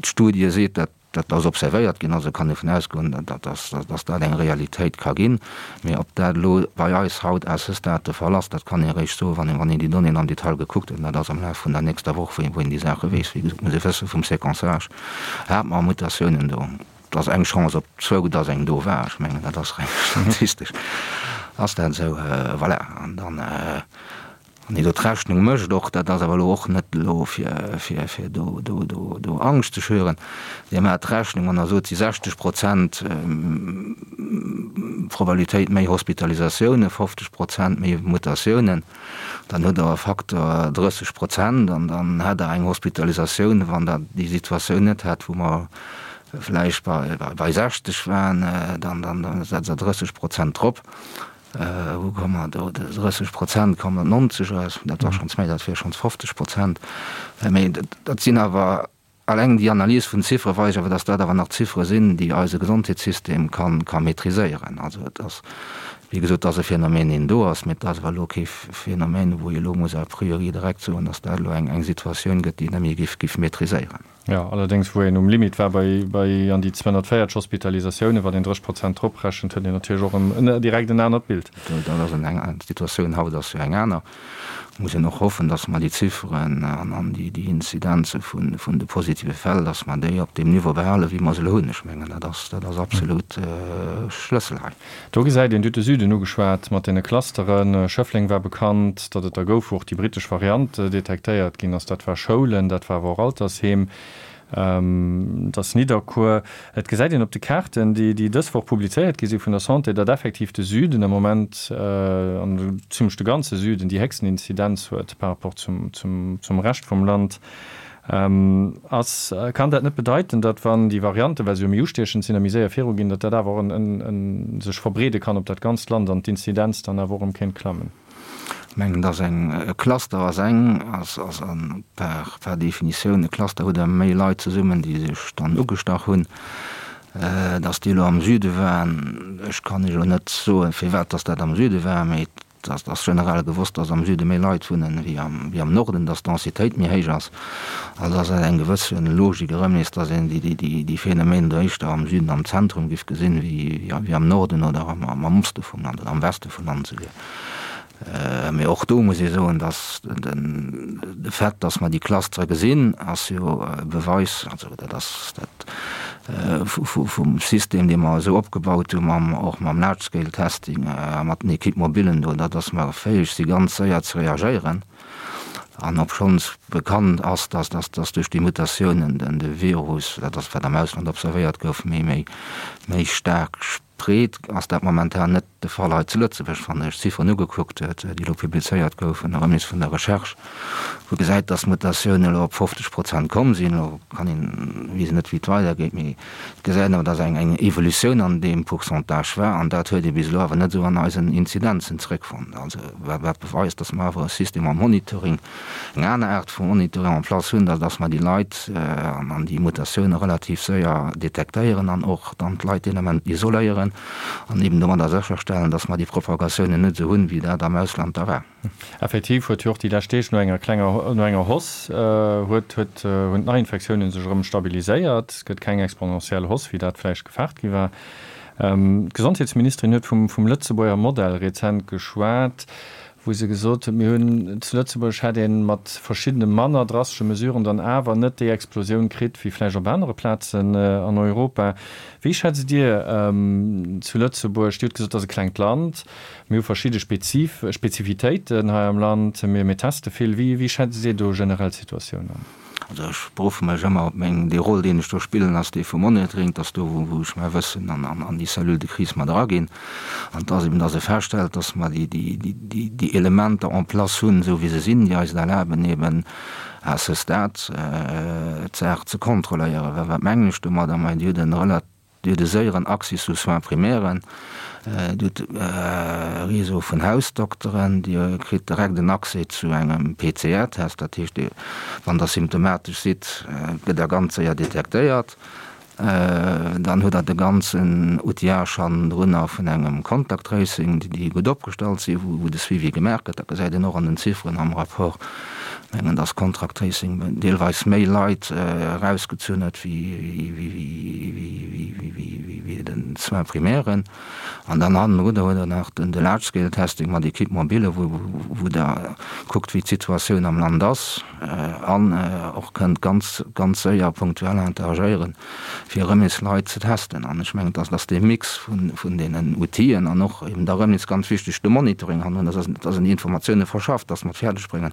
Speaker 3: d'Studie seet, dat Dat ass observéiert ginn, also kann ee vun ausgoen, datt dat eng Realitéit ka ginn. Mee ob dat elo bei eis haut à ce stade de Fall ass, dat kann ee eréischt soen, wann een déi Donnéeën am Detail gekuckt huet. An dat ass am Laf vun der nächster Woch, wou een déi Saache weess. Wéi gesot, muss ee wësse vum Séquençage hate mer Mutatiounen do. Et ass eng Chance op zwou, datt eng do war. Ech mengen, dat ass reng statistesch ass dat esou. Voilà, an dann. Wann een do d'Rechnung mécht, och dat ass awer elo och net elo fir, fir, fir do, do, do, do Angscht ze schüren, Dir maacht d'Rechnung an da sot si 60 Prozent Probabilitéit méi Hospitalisatiounen, 50 Prozent méi Mutatiounen, dann hutt Der e Facteur 30 Prozent an dann hätt Der eng Hospitalisatioun, wann Der déi Situatioun net hätt, wou mer. vläicht bei 60 waren, dann setzt Der 30 Prozent drop. Wou komme mer do? 30 Prozent kommen op 90 eraus, dat war schonns méi, dat wier schonns 50 Prozent. Mee dat sinn awer, alleng déi Analys vun Ziffere weist awer, datt dat awer nach Ziffere sinn, déi eise Gesondheetssystem ka maîtriséieren. Also et ass, wéi gesot, et ass e Phänomen, deen do ass, mee et ass awer elo kee Phänomen, wou ee elo muss a priori direkt soen, datt dat elo eng Situatioun gëtt, déi net méi géif maîtriséieren.
Speaker 2: Jo, allerdéngs wou een um Limit war bei bei an déi 240 Hospitalisatiounen, wann een 30 Prozent drop rechent, huet een natierlech och en direkt en anert Bild.
Speaker 3: Dat ass eng, d'Situatioun haut ass jo eng aner. Muss een och hoffen, datt mer déi Zifferen an an déi déi Inzidenze vun vun de positive Fäll, datt mer déi op deem Niveau behalen, wéi mer se elo hunn. Ech mengen, dat ass dat ass absolut Schlëssel hei.
Speaker 2: Do gesäit een, Dir hutt de Süden ugeschwat mat deene Clusteren. Schëffleng war bekannt, datt et der gouf, wou och déi brittesch Variant detektéiert ginn ass. Dat war Schoulen, dat war awer och Altersheem, dat ass Nidderkuer. Et gesäit een op de Kaarten, déi dës Woch publizéiert gi si vun der Santé, datt effektiv de Süden am Moment, an zimlech de ganze Süden, déi héchsten Inzidenz huet par rapport zum Rescht vum Land. Ass, kann dat net bedeiten, datt wann déi Varianten, well se jo méi ustiechend sinn a méi séier viruginn, datt dat awer och en sech verbreede kann op dat ganzt Land an d'Inzidenz dann awer och erëm kéint klammen?
Speaker 3: Ech mengen, datt eng, e Cluster ass eng, ass, ass an par, par Definitioun e Cluster huet ëmmer méi Leit zesummen, déi sech dann ugestach hunn. Datt déi elo am Süde waren, ech kann Iech elo net soen, firwat datt dat am Süde war, mee Et ass generell gewosst, dass am Süde méi Leit wunnen wéi am Norden, dass d'Densitéit méi héich ass. Also ass dat eng gewësse Logik erëm nees, dass een déi Phänomenen do éischter am Süden, am Zentrum giff gesinn, wéi am Norden oder am Oste vum Land oder am Weste vum Land esouguer. Mee och do muss ee soen, dass de Fait, dass mer déi Clustere gesinn, ass jo e Beweis, also dat ass dat, vum System, dee mer esou opgebaut hu mam, och mam Large Scale Testing a mat den Équipes mobilen do, dat dass mer fäeg si ganz séier ze reagéieren. An obschonns bekannt ass, dass, dass, dass duerch déi Mutatiounen den, de Virus, dat ass wat am Ausland observéiert gouf, méi, méi, méi staark spreet, ass dat momentan net de Fall hei zu Lëtzebuerg, wann ee sech d'Zifferen ugekuckt huet, déi elo publizéiert goufen, erëm nees vun der Recherche, wou gesäit, datt d'Mutatiounen elo op 50 Prozent komm sinn. Elo kann een, weess een net, wéi et weidergeet, mee et gesäit een awer, datt eng eng Evolutioun an deem Pourcentage war, an dat huet ee bis elo awer net esou an eisen Inzidenzen zeréckfonnt. Also wat wat beweist, datt mer awer e System am Monitoring, eng aner Aart vu Monitoring en place hunn, datt mer déi Leit an déi Mutatioune relativ séier detektéieren an och dann d'Leit deen Ament isoléieren an eben domadder sécherstellen, datt mer déi Propagatiounen net esou hunn, wéi dat am Ausland da war.
Speaker 2: Effektiv huet jo och déi lescht Deeg no enger klenger, no enger Hausse huet, huet, hunn d'Neiinfektiounen sech erëm stabiliséiert. Et gëtt keng exponentiell Hausse, wéi dat vläicht gefaart gi war. D'Gesondheetsministerin huet vum, vum Lëtzebuerger Modell rezent geschwat. wou se gesot huet, mir hunn zu Lëtzebuerg hätt ee mat verschiddene manner drastesche Mesuren dann awer net déi Explosioun kritt wéi vläicht op anere Plazen an Europa. Wéi schätzt Dir zu Lëtzebuerg, Dir hutt gesot, et ass e klengt Land, mir hu verschidde Spezif Spezifitéiten hei am Land, mir mir teste vill, wéi wéi schätzt Dir do generell d'Situatioun an?
Speaker 3: Also ech beruffe mech ëmmer op meng, dee Rôle deen ech do spillen ass dee vum Monitoring, dass do wou wou ech mäi Wëssen an an an déi Cellule de crise mat eraginn an dass eben dass e feststellt, dass mer déi déi déi déi déi Elementer en place hunn, esou wéi se sinn, déi eis et erlaben eben à ce stade d'Saach ze kontrolléieren. Well wat mengen ech domadder? Majo Dir hutt en relat Dir hutt e séieren Accès zu Soins primairen, Dir hutt e Réseau vun Hausdokteren, Dir kritt direkt en Accès zu engem PCR-Test, dat heescht, wann Der symptomatesch sidd, gëtt Der ganz séier detektéiert. Dann hutt Der de ganzen Outillage hannendrunner vun engem Contact Tracing, déi gutt opgestallt sinn, wou de Suivi gemaach gëtt. Dat gesäit een och an den Zifferen am Rapport. Mengen, dass Contract Tracing deelweis méi Leit erausgezunn huet wéi den Soins primairen. An dann hannendrun huet Der nach de Large Scale Testing mat Équipe mobile, wou Der kuckt, wéi d'Situatioun am Land ass an och kënnt ganz, ganz séier punktuell interagéieren. fir erëm nees Leit ze testen. An ech mengen, dass dee Mix vun deenen Outill'en an och eben da erëm nees ganz wichteg de Monitoring hannendrun, dass dass een déi Informatiounen verschafft, dass mer et fäerdeg bréngen,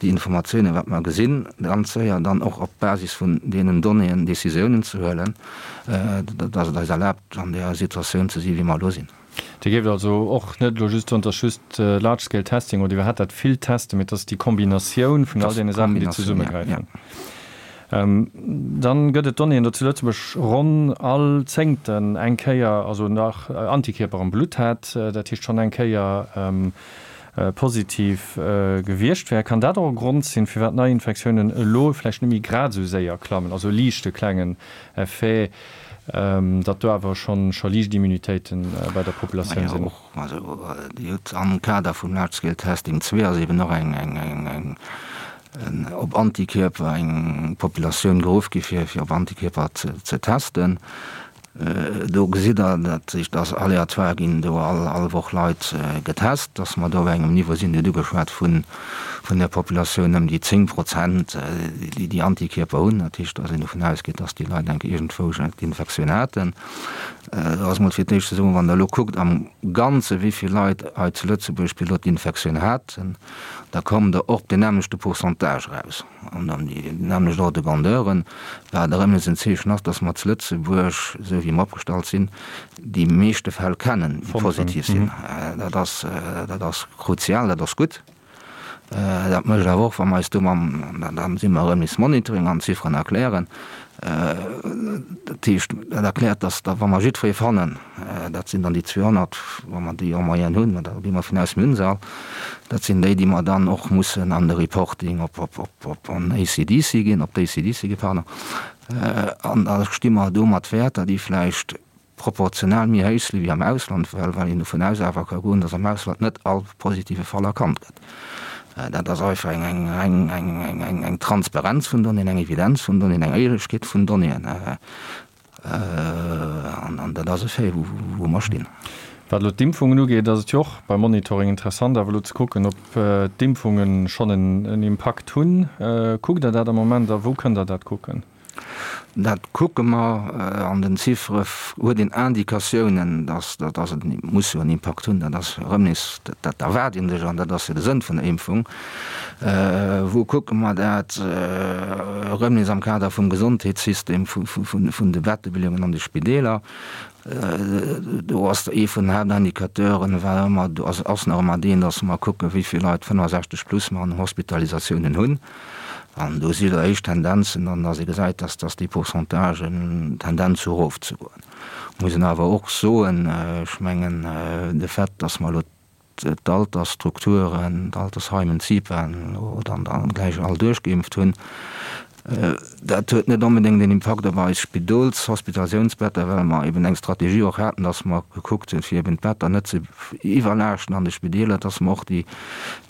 Speaker 3: déi Informatiounen, wat mer gesinn, ganz séier dann och op Basis vun deenen Donnéeën Décisiounen ze huelen, dass et eis erlaabt, an där Situatioun ze sinn, wéi mer elo sinn.
Speaker 2: Dir géift also och net elo just soen, et ass just Large Scale Testing oder iwwerhaapt dat vill Testen, mee et ass déi Kombinatioun vun all deene Saachen, déi zesummegräifen. Dann gëtt et Donnéeën, datt zu Lëtzebuerg ronn all Zéngten eng Kéier, also nach Antikierper am Blutt hat, dat heescht schonn eng Kéier positiv gewiescht wär. Kann dat och e Grond sinn, firwat d'Neiinfektiounen elo vläicht net méi grad esou séier klammen, also e liichte klengen Effet, datt do awer schonn scho liicht Immunitéite bei der Populatioun sinn?
Speaker 3: Also Dir hutt am Kader vum Large Scale Testing 2 ass eben och eng eng op Antikierper eng Populatioun geruff gi fir fir op Antikierper ze testen. Do gesitt Der, dat heescht, dass aléatoire ginn do all all Woch Leit getest, dass mer do op engem Niveau sinn, Dir hutt ugeschwat vun vun der Populatioun ëm déi 10 Prozent, déi déi Antikierper hunn. Dat heescht, dass een dovun ausgeet, dass déi Leit enk iergendwou d'Infektioun haten. Do ass mol fir d'éischt ze soen, wann Der elo kuckt am Ganze wéi vill Leit hei zu Lëtzebuerg bis elo d'Infektioun haten, da kommt Der och op deen nämmlechte Pourcentage eraus an an déi nämmlecht Ordre de grandeuren, wat erëm nees en Zeechen ass, dass mer zu Lëtzebuerg, esou wéi mer opgestallt sinn, déi meeschte Fäll kennen, déi positiv sinn. Dat ass, dat ass kruzial, dat ass gutt. Dat mécht awer och, wa mer eis do mam, an da si mer erëm nees Monitoring an Zifferen erklären, dat heescht, dat erkläert, dass da wa mer jiddweree fannen, dat sinn dann déi 200, wa mer déi en moyenne hunn, da gi mer vun aus, mir hunn se all, dat sinn déi, déi mer dann och mussen an de Reporting op, op, op, op an ACDC ginn, op d'ACDC ginn, pardon, an da sti mer do mat Wäerter, déi vläicht proportional méi héich si wéi am Ausland, well well een dovun aus awer ka goen, datt am Ausland net all positive Fall erkannt gëtt. Dat ass einfach eng eng eng eng eng eng eng Transparenz vun Donnéeën, eng Evidenz vun Donnéeën, eng Éierlechkeet vun Donnéeën. An an dat ass e Fait, wou wou mer stinn.
Speaker 2: Wat elo d'Impfungen ugeet, ass et jo och beim Monitoring interessant awer elo ze kucken, ob d'Impfungen schonn en en Impakt hunn. Kuckt Der dat am Moment a wou kënnt Der dat kucken?
Speaker 3: Dat kucke mer. An den Ziffere huet een Indikatiounen, dass dass et muss jo en Impakt hunn. Dat ass erëm nees, dat erwaart ee sech an dat ass jo de Sënn vun der Impfung. Wou kucke mer dat? Erëm nees am Kader vum Gesondheetssystem, vun de Bettebeleeungen an de Spideeler. Do ass ee vun den Haaptindicateuren war ëmmer, ass nach ëmmer deen, dass mer kucken, wéi vill Leit 65 plus mer an Hospitalisatiounen hunn. An do si jo éischt Tendenzen, an dass ee gesäit, dass dass déi Pourcentagen Tendenz hu erofzegoen. Muss een awer och soen, ech mengen de Fait, dass mer elo d'Altersstrukturen, d'Altersheimen, d'CIPAen elo dann gläich all duerchgeimpft hunn, dat huet net onbedéngt een Impakt op eis Spidols-, Hospitalisatiounsbetter, well mer eben eng Strategie och haten, dass mer gekuckt hunn, fir eben d'Better net ze iwwerlaaschten an de Spideeler, dass mer och déi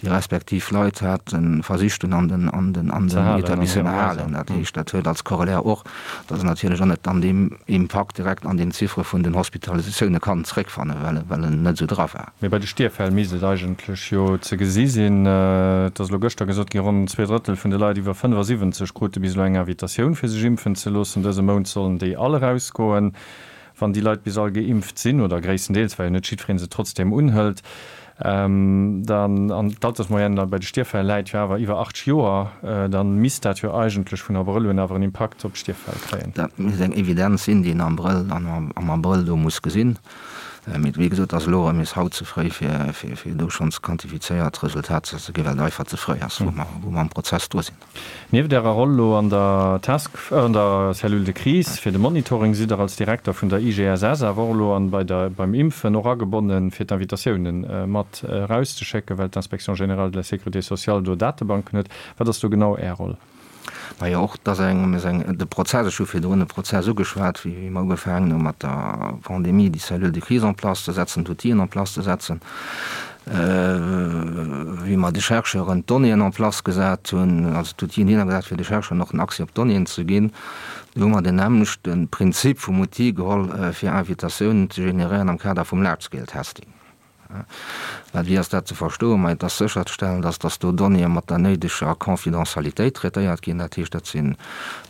Speaker 3: déi respektiv Leit haten, versicht hunn an den, an den, an den Etablissementen halen. Dat heescht, dat huet als Corollaire och, dass een natierlech och net dann deem Impakt direkt an den Ziffere vun den Hospitalisatioune kann zréckfannen, well, well en net esou dra war.
Speaker 2: Mee bei de Stierffäll misst et eigentlech jo ze gesi sinn. Et ass elo gëschter gesot ginn, ronn zweedrëttel vun de Leit iwwer 75 krute bis elo eng Invitatioun fir sech impfen ze loossen. Dëse Mount sollen déi all erausgoen. Wann déi Leit bis all geimpft sinn, oder gréisstendeels, well jo net jiddweree se trotzdeem unhëlt, dann, an d'Altersmoyenne bei de Stierffäll läit jo awer iwwer 80 Joer, da misst dat jo eigentlech vun Abrëll un awer en Impakt op d'Stierffäll kréien.
Speaker 3: Dat misst eng Evidenz sinn, déi een am Abrëll, am Abrëll do muss gesinn. Mee wéi gesot, ass elo erëm nees haut ze fréi, fir do schonns quantifizéiert Resultater ze ginn, well et einfach ze fréi ass, wou mer am Prozess dru sinn.
Speaker 2: Nieft Ärer Roll elo an der Task, an der Cellule de crise fir de Monitoring, sidd Der als Direkter vun der IGSS awer och elo an bei der, beim Impfen och agebonnen, fir d'Invitatiounen mat erauszeschécken, well d'Inspection générale de la sécurité sociale do Datebanken huet. Wat ass do genau Är Roll?
Speaker 3: Majo, och dat ass eng, eng, de Prozess, ech hu virdrun e Prozess ugeschwat, wéi mer ugefaangen hu mat der Pandemie, déi Cellule de crise en place ze setzen, d'Outill'en en place ze setzen, wéi mer de Chercheuren d'Donnéeën en place gesat hunn, also d'Outill'en hinner gesat, fir de Chercheuren och den Accès op d'Donnéeën ze ginn. Do hu mer den nämmlechte Prinzip vum Outil geholl, fir Invitatiounen ze generéieren am Kader vum Large-Scale-Testing. Mä wéi ass dat ze verstoen? Ma et ass sécherzestellen, dass dass do Donnéeë mat der néideger Confidentialitéit traitéiert ginn. Dat heescht, dat si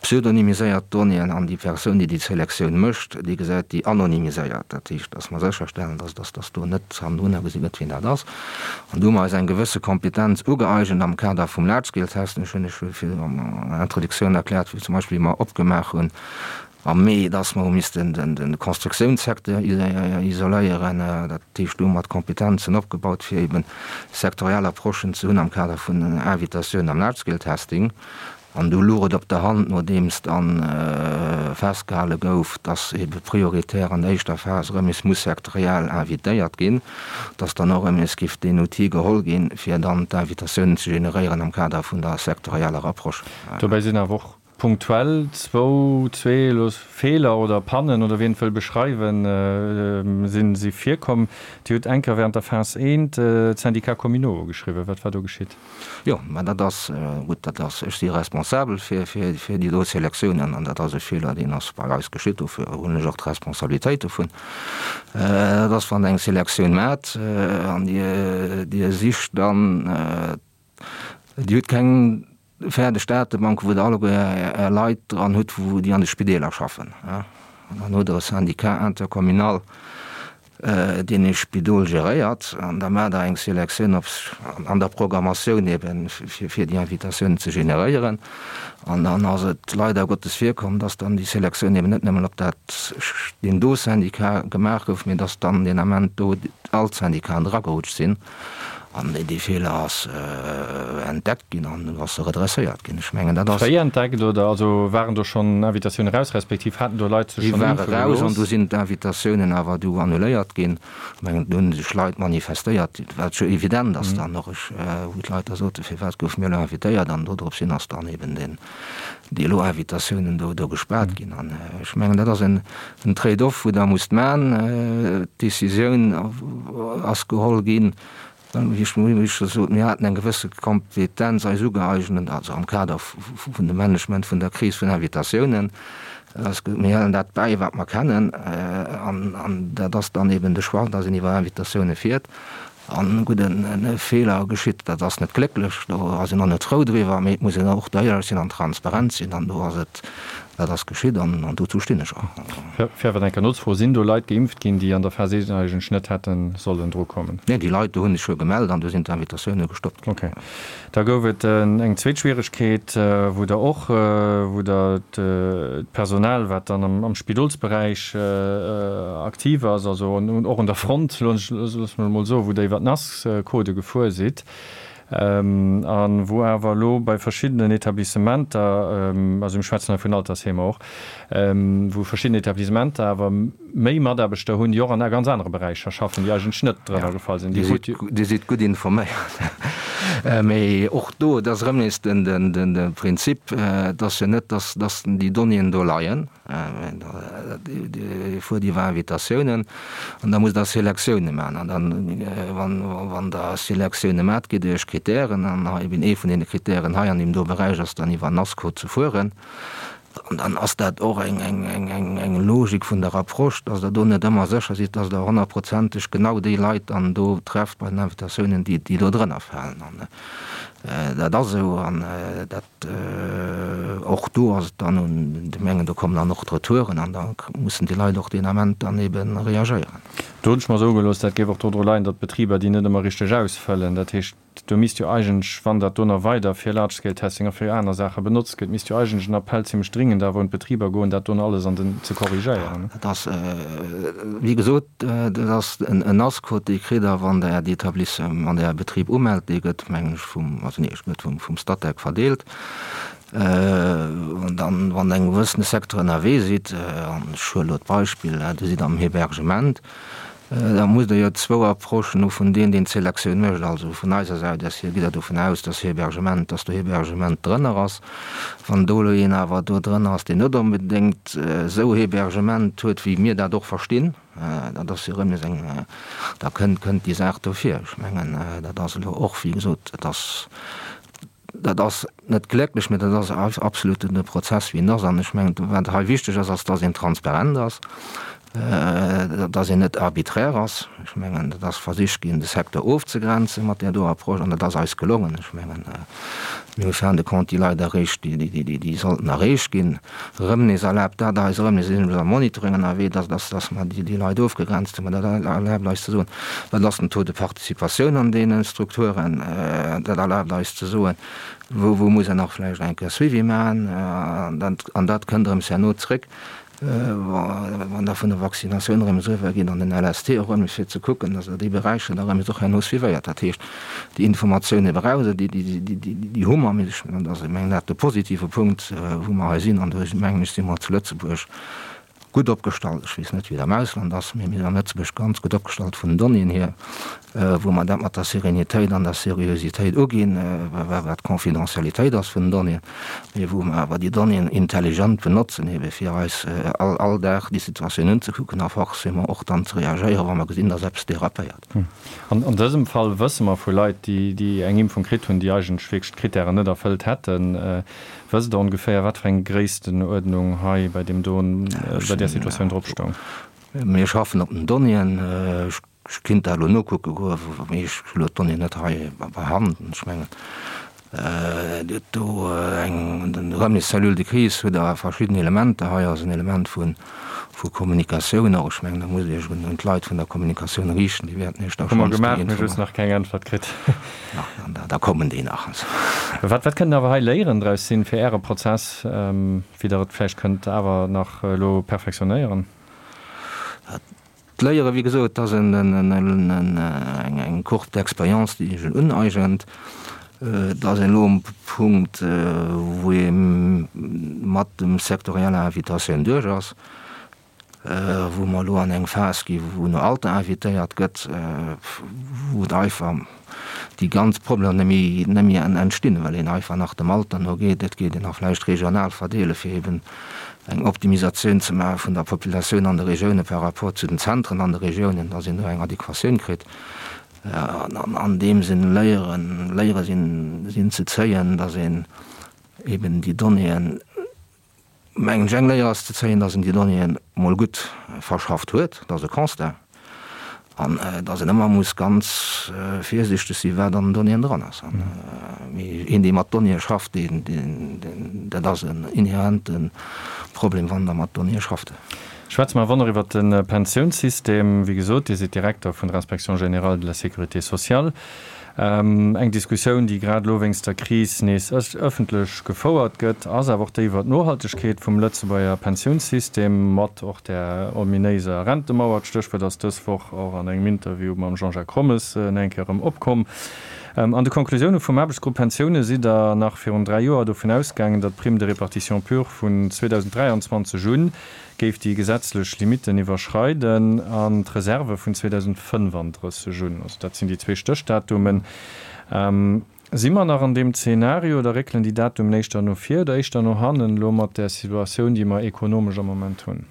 Speaker 3: pseudonymiséiert Donnéeën an déi Persoun, déi déi Selektioun mécht, déi gesäit déi anonymiséiert. Dat heescht, dass mer sécherstellen, dass dass dass do net hannendrunner gesi gëtt, wien dat ass. An do hu mer eis eng gewësse Kompetenz ugëeigent am Kader vum Large-Scale-Testing. Ech hunn lech virdu an der Introduktioun erkläert, wéi zum Beispill wéi mer opgemaach hunn, Am Mee, dass mer hu missten de Constructiounssecteur isoléieren, dat heescht do hu mer d'Kompetenzen opgebaut, fir eben sektoriell Approchen ze hunn am Kader vun Invitatiounen am Large-Scale-Testing. An du luch et op der Hand, nodeems dann festgehale gouf, dass ebe prioritär an der éischter Phas erëm nees muss sektoriell invitéiert ginn, dass dann och erëm nees giff deen Outil geholl ginn, fir dann d'Invitatiounen ze generéieren am Kader vun der sektorieller Approche.
Speaker 2: Dobäi sinn awer och punktuell zwou, zwee elo Feeler oder Pannen oder wéi een et wëll beschreiwen, sinn, si virkomm. Dir hutt eng Kéier während der Phas I d'Syndicats communaux ugeschriwwen. Wat war do geschitt?
Speaker 3: Jo, mä dat ass gutt, dat ass, ech si responsabel fir, fir, fir déi do Selektiounen an dat ass e Feeler, deen ass bei eis geschitt, dofir hunn ech och d'Responsabilitéit dovun. Dat ass, wann Der eng Selektioun maacht an Dir, Dir sicht dann, Dir hutt keng fäerdeg Datebank, wou Der alleguer Är Leit dran hutt, wou déi an de Spideeler schaffen. An dann hutt Der e Syndicat intercommunal, deen ee Spidol geréiert, an da maacht Der eng Selektioun op an der Programmatioun eben, fir fir déi Invitatiounen ze generéieren. An dann ass et leider Gottes virkomm, dass dann déi Selektioun eben net nëmmen op dat deen do Syndicat gemaach gouf, mee dass dann deen Ament do all d'Syndicaten eragerutscht sinn. An dee Feeler ass entdeckt ginn an du ass e redresséiert ginn. Ech mengen, dat ass.
Speaker 2: Fréi entdeckt oder also waren do schonn Invitatiounen eraus, respektiv haten do Leit sech
Speaker 3: schonn impfe gelooss? Déi ware raus an du sinn d'Invitatiounen awer du annuléiert ginn. Ech mengen, do hu sech Leit manifestéiert, wat jo evident ass dann och, ech, wou d'Leit da soten, firwat goufe mir elo invitéiert? An dodrops hin ass dann eben deen, déi elo Invitatiounen do, do gespaart ginn. An ech mengen, dat ass en, en Trade-off, wou Der musst maachen. D'Decisioun ass geholl ginn, wéi ech wéi ech scho sot, mir haten eng gewësse Kompetenz eis ugeeignet, also am Kader vun dem Management vun der Kris vun Invitatiounen. Ass gesot, mir halen dat bäi, wat mer kennen. An, an dat ass dann eben de Choix, dass een iwwer Invitatioune fiert. An gutt, e Feeler geschitt, dat ass net glécklech, do ass een och net frou driwwer, mee et muss een och do éierlech sinn an transparent sinn an do ass et, dat ass geschitt an dozou stinn ech och.
Speaker 2: Fir awer eng Kéier nozefroen, Sinn do Leit geimpft ginn, déi an der Phas I eigentlech net hätte sollen drukommen?
Speaker 3: Nee, déi Leit do hu sech jo gemellt an do sinn d'Invitatioune gestoppt ginn.
Speaker 2: Okay. Da gouf et eng zweet Schwieregkeet, wou Der och, wou Der d'Personal, wat dann am Spidolsberäich aktiv ass, also och un der Front, loosse mer emol soen, wou Der iwwer d'NAS-Codë gefuer sidd a wou awer elo bei verschiddenen Etablissementer, also mir schwätzen hei vun Altersheemer och, wou verschidden Etablissementer awer méi Mataarbechter hunn, déi och an ganz anere Beräicher schaffen, déi eigentlech net drënner gefall sinn.
Speaker 3: Dir sidd gutt informéiert. Mee och do, et ass erëm nees de Prinzip, et ass jo net, datt déi Donnéeën do leien. Dir fuert iwwer Invitatiounen an da musst Der Selektioune maachen. An dann, wann Der Selektioune maacht, gitt Dir Iech Kritären. An hei eben ee vun deene Kritären hei an deem do Beräich ass dann iwwer NASCO ze fueren. An dann ass dat och eng Logik vun der Approche, dass Der do net ëmmer sécher sidd, dass Der honnertprozenteg genau déi Leit dann do trefft bei den Invitatiounen, déi do drënner falen. An dat ass esou. An dat, och do ass et dann un de Gemengen, do kommen dann och d'Retouren an da mussen déi Leit och deen Ament dann ebe reagéieren.
Speaker 2: Do hunn ech mer soe gelooss, dat géif och dodru leien, datt d'Betriber déi net ëmmer richteg ausfëllen. Dat heescht, Do misst jo eigentlech, wann dat do nach weider fir Large-Scale-Testing a fir aner Saache benotzt gëtt, misst jo eigentlech en Appell zimlech dringend awer un d'Betriber goen, dat do nach alles an den ze korrigéieren.
Speaker 3: Dat ass, wéi gesot, dat ass en NAS-Code, dee kritt Der, wann Der Äert Etablissement, wann Der Äre Betrib umellt. Dee gëtt, mengen ech, vum, also nee, gëtt vum Statec verdeelt. An dann, wann Der engem gewëssene Secteur ënnerwee sidd, an ech huele elo d'Beispill, Dir sidd am Hébergement, Da musst Der jo zwou Approchen hu vun deem, deen d'Selektioun mécht. Also vun eiser Säit aus hier gitt Der dovun aus, dass Hébergement, dass do Hébergement drënner ass. Wann do elo een awer do drënner ass, deen net onbedéngt esou Hébergement huet, wéi mir dat och verstinn, dat ass jo erëm nees eng, da kënnt, kënnt déi Saach do vir. Ech mengen, dat ass elo och, wéi gesot, dat ass, Dat ass net glécklech, mä dat ass absolut de Prozess, wéi en ass. An ech mengen, wat hei wichteg ass, ass, dass een transparent ass, dass een net arbiträr ass. Ech mengen, et ass versicht ginn, de Secteur ofzegrenzen mat där do Approche, an dat ass eis gelongen. Ech mengen, mir hu fin de compte déi Leit erreecht, déi sollten erreecht ginn. Erëm nees erlaabt dat eis, erëm nees sinn am Monitoring ënnerwee, dass, dass, dass mer déi Leit ofgegrenzt hunn. Mä dat erlaabt eis ze soen, wat ass den Taux de participatioun an deene Strukturen. Dat erlaabt eis ze soen, wou, wou muss een nach vläicht eng Kéier Suivi maachen. An dat, an dat kënnt erëm herno zréck. Wann Der vun der Vaccinatioun erëm eriwwer gitt an den LST och erëm, fir ze kucken, dass Der déi Beräicher da erëm och herno suivéiert. Dat heescht, déi Informatioune braucht Der, déi hu mer. Mee ech mengen, dat ass dat de positive Punkt, wou mer hei sinn. An do, mengen ech, si mer zu Lëtzebuerg gutt opgestallt. Ech weess net, wéi et am Ausland ass, mee mir sinn an Lëtzebuerg ganz gutt opgestallt vun den Donnéeën hier, wou mer dat mat der Sérénitéit an der Seriositéit uginn, wat d'Confidentialitéit ass vun den Donnéeën, mee wou mer awer déi Donnéeën intelligent benotzen, ebe fir eis all, all Dag déi Situatioun unzekucken a forcément och dann ze reagéieren, wa mer gesinn, dass eppes dérapéiert.
Speaker 2: An dësem Fall wësse mer vu Leit, déi eng Impfung kritt hunn, déi eigentlech wierklech d'Krittären net erfëllt hätten. Wësst Der ongeféier, wat fir eng Gréisstenuerdnung hei bei deem do, bei där Situatioun drop stoung?
Speaker 3: Mir schaffen op den Donnéeën. Ech kinnt dat elo nokucke goen, mee ech hu elo d'Donnéeën net hei bei Hand. Ech mengen, Dir hutt do eng, den Remis Cellule de crise huet awer verschidden Elementer. Hei ass en Element vu Kommunikatioun och. Ech mengen, da musst Dir Iech un d'Leit vun der Kommunikatioun riichten, déi wäerten Iech da
Speaker 2: schonns déi Hu mer gemaach, mee just nach keng Äntwert kritt.
Speaker 3: Da kommen déi nach.
Speaker 2: Wat wat kënnt awer hei Léieren draus sinn fir Äre Prozess, wéi Der et vläicht kënnt awer nach elo perfektionéieren?
Speaker 3: D'Léiere, wéi gesot, ass eng Courbe d'expérience, déi sech uneigent. Et ass een elo um Punkt, wou ee mat dem sektorieller Invitatioun duerch ass. wou mer elo an eng Phas gi wou no Alter invitéiert gëtt, wou et einfach déi ganz Problemer net méi, net méi entstinn, well een einfach nach dem Alter no geet. Et geet een nach vläicht regional verdeele fir eben eng Optimisatioun ze maache vun der Populatioun an de Regioune par rapport zu den Zentren an de Regiounen, dass een do eng Adequatioun kritt. An an deem Sënn Léieren, Léiere sinn, sinn ze zéien, dass een eben déi Donnéeën, Mengen ech, eng Léier ass ze zéien, dass en déi Donnéeën mol gutt verschafft huet, dat ass e Constat, an dass een ëmmer muss ganz virsichteg sinn, wat an den Donnéeën dran ass. Mee een, dee mat Donnéeë schafft, deen, deen, dat ass en inhärente Problem, wann Der mat Donnéeë schafft.
Speaker 2: Schwätze mer awer nach iwwert de Pensiounssystem. Wéi gesot, Dir sidd Direkter vun der Inspection générale de la sécurité sociale. Eng Diskussioun, déi grad elo wéinst der Kris nees ëffentlech gefouert gëtt, ass awer och déi iwwer d'Nohaltegkeet vum Lëtzebuerger Pensiounssystem, mat och där ominéiser Rentemauer. D'Stéchwuert ass dës Woch och an engem Interview mam Jean-Jacques Rommes nach eng Kéier erëm opkomm. An de Konklusioune vum Aarbechtsgrupp Pensioune sidd Der nach virun 3 Joer dovun ausgaangen, datt d'Prime de répartition pure vun 2023 un géif déi gesetzlech Limitten iwwerschreiden an d'Reserve vun 2035 un, also dat sinn déi zwee Stéchdatumen. Si mer nach an deem Zeenario oder réckelen déi Datumen éischter no vir oder éischter no hannen, elo mat där Situatioun, déi mer ekonomesch am Moment hunn?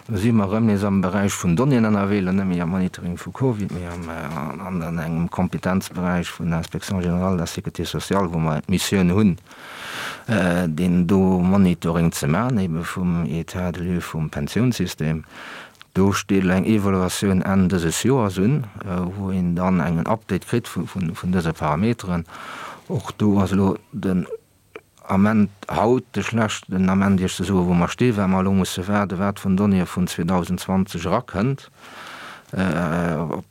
Speaker 3: Do si mer erëm nees am Beräich vun Donnéeën ënnerwee, elo net méi am Monitoring vu Covid, mee an engem Kompetenzberäich vun der Inspection générale de la sécurité sociale, wou mer d'Missioun hunn, deen do Monitoring ze maachen, ebe vum État de lieu vum Pensiounssystem. Do steet elo eng Evaluatioun Enn dëses Joers un, wou een dann engen Update kritt vun dëse Parameteren. Och do ass elo den Ament, haut de schlechten Ament, Iech ze soen, wou mer stinn, well mer elo musse waarden, wat vun Donnéeë vun 2020 erakënnt. Op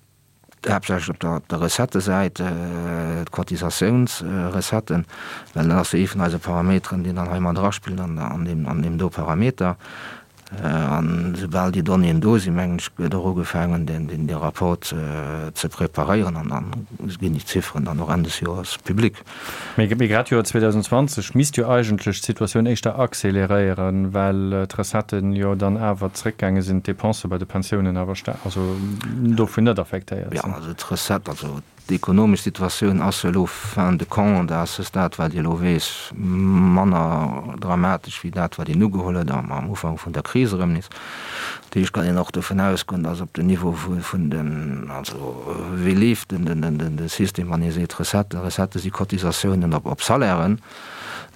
Speaker 3: haaptsächlech op der, op der Recettesäit, d'Cotisatiounsrecetten, well dat ass jo ee vun eise Parameteren, deen dann hei mat eraspillt an, an deem, an deem do Parameter. An esoubal déi Donnéeën do sinn, mengen ech, gëtt och ugefaangen, deen, deen, dee Rapport ze, ze preparéieren an dann ginn déi Zifferen dann och Enn des Joers public.
Speaker 2: Mee, mee grad d'Joer 2020 misst jo eigentlech d'Situatioun éischter accéléréieren, well d'Recetten jo dann awer zréckgaange sinn, d'Dépensë bei de Pensiounen awer sta-, also dovun net affektéiert
Speaker 3: sinn. Jo, also d'Recette, also d'ekonomesch Situatioun ass jo elo fin de compte à ce stade, wat ee elo weess, manner dramatesch wéi dat, wat een ugeholl huet am Ufank vun der Kris erëm nees. Dat heescht, kann een och dovun ausgoen, datt op den Niveau vun den, also wéi leeft den System, wann ee seet Recetten, Recettë si Cotisatiounen op Salairen,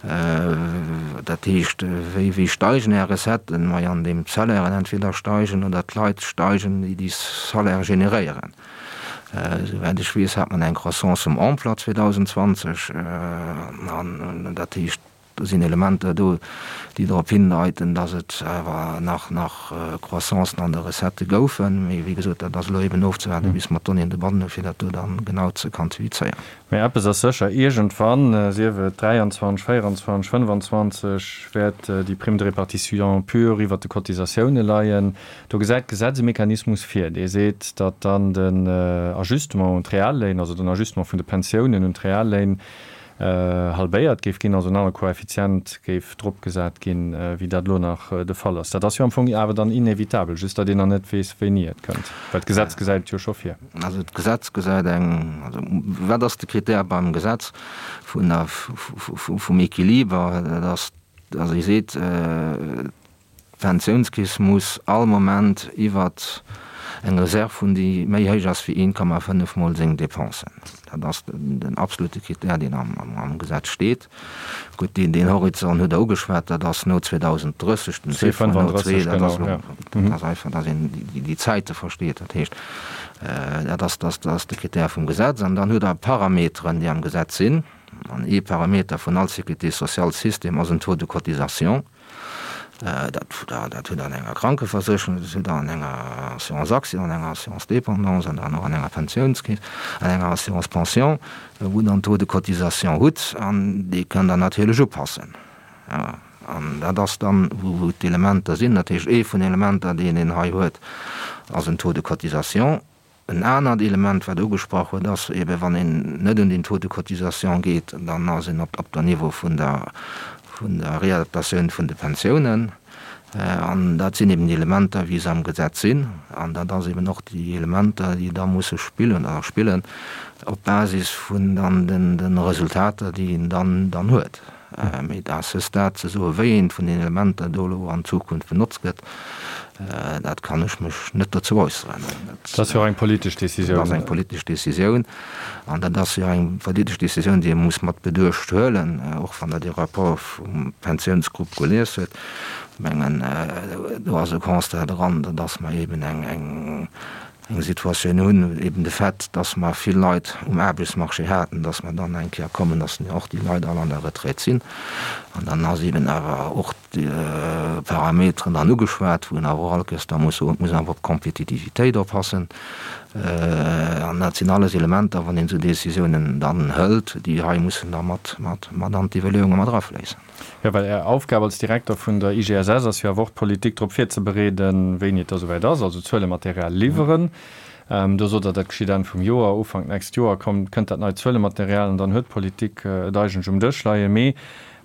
Speaker 3: dat heescht, wéi wéi steigen Är Recetten? Majo, andeem d'Salairen entweder steigen oder d'Leit steigen, déi déi Salaire generéieren. Souwäit ech weess, hat mer eng Croissance vum Emploi 2020, an dat heescht. Do sinn Elementer do, déi drop hindeiten, datt et awer nach nach Croissancen an de Recettë goufen. Mee wéi gesot, dat ass elo eben ofzewaarden, bis mer d'Donnéeën dobannen hunn, fir dat do dann genau ze quantifizéieren.
Speaker 2: Mee eppes ass sécher, Iergendwann, sief et 23, 24, 25, wäert déi Prime de répartition pure iwwert de Cotisatioune leien. Do gesäit d'Gesetz e Mechanismus vir, dee seet, datt dann den Ajustement un d'Realléin, also den Ajustement vun de Pensiounen un d'Realléin, halbéiert géif ginn, also en anere Koeffizient géif dropgesat ginn, wéi dat elo nach de Fall ass. Dat ass jo am Fong awer dann inevitabel, just datt een nach net weess, wéini et kënnt, well d'Gesetz gesäit et jo scho vir.
Speaker 3: Also d'Gesetz gesäit eng, also wat ass de Krittär beim Gesetz vun der, vum Equiliber? Dat ass, also e seet, D'Pensiounskeess muss all Moment iwwer eng Reserv hunn, déi méi héich ass wéi 1,5 mol seng Dépensen. Dat ass den absolute Krittär, deen am Gesetz steet. Gutt, deen Horizont hutt Der ugeschwat, dat ass no 2030, den Chiffre no zwee, dat ass elo, dat ass einfach, datt een déi Zäite versteet. Dat heescht, dat ass, dat ass de Krittär vum Gesetz. An dann hutt Der Parameteren, déi am Gesetz sinn. An ee Parameter vun all Sécurité-sociale-System ass en Taux de cotisation. Dat hutt Der an enger Krankeversécherung, dat hutt Der an enger Assurance accident, an enger Assurance dépendance an dann och an enger Pensiounskeess, an enger Assurance pension, wou Der en Taux de cotisation hutt an dee kënnt Der natierlech upassen. An dat ass dann, wou d'Elementer sinn. Dat heescht, ee vun Elementer, deen een hei huet, ass en Taux de cotisation. En anert Element, wat ugesprach huet, ass eeben, wann een net un den Taux de cotisation geet, dann ass een op der Niveau vun der vun der Réadaptatioun vun de Pensiounen. An dat sinn eben déi Elementer, wéi se am Gesetz sinn. An dat ass eben och déi Elementer, déi da musse spillen oder spillen op Basis vun dann de Resultater, déi een dann dann huet. Mee à ce stade ze soen, wéi eent vun den Elementer do elo an Zukunft benotzt gëtt, dat kann ech mech net dozou äusseren.
Speaker 2: Dat ass jo och eng politesch Décisioun.
Speaker 3: Dat ass eng politesch Décisioun. An dat ass jo eng politesch Décisioun, déi ee muss mat Beduecht huelen, och wann Der dee Rapport vum Pensiounsgrupp gelies huet. Ech mengen, do ass e Constat dran, datt mer eeben eng eng Situatioun hunn, eben de Fait, dass mer vill Leit um Aarbechtsmarché haten, dass mer dann eng Kéier kommen, dass och déi Leit all an der Retraite sinn. An dann ass eben awer och déi Parameteren dann ugeschwat, wou een awer och all Kéiers da muss soen, et muss een awer op d'Kompetitivitéit oppassen. An dat sinn alles Elementer, wann een esou Décisiounen dann hëlt, déi hei mussen da mat an d'Iwwerleeunge mat erafléissen.
Speaker 2: Jo, well Är Aufgab als Direkter vun der IGSS ass jo awer och, d'Politik drop virzebereeden, wéini et da souwäit ass, also Zuelematerial liwweren. Do sot Der, dat geschitt Enn vum Joer, Ufank d'nächst Joer kommt, kënnt dat neit Zuelematerial an dann huet d'Politik et eigentlech um Dësch leien. Mee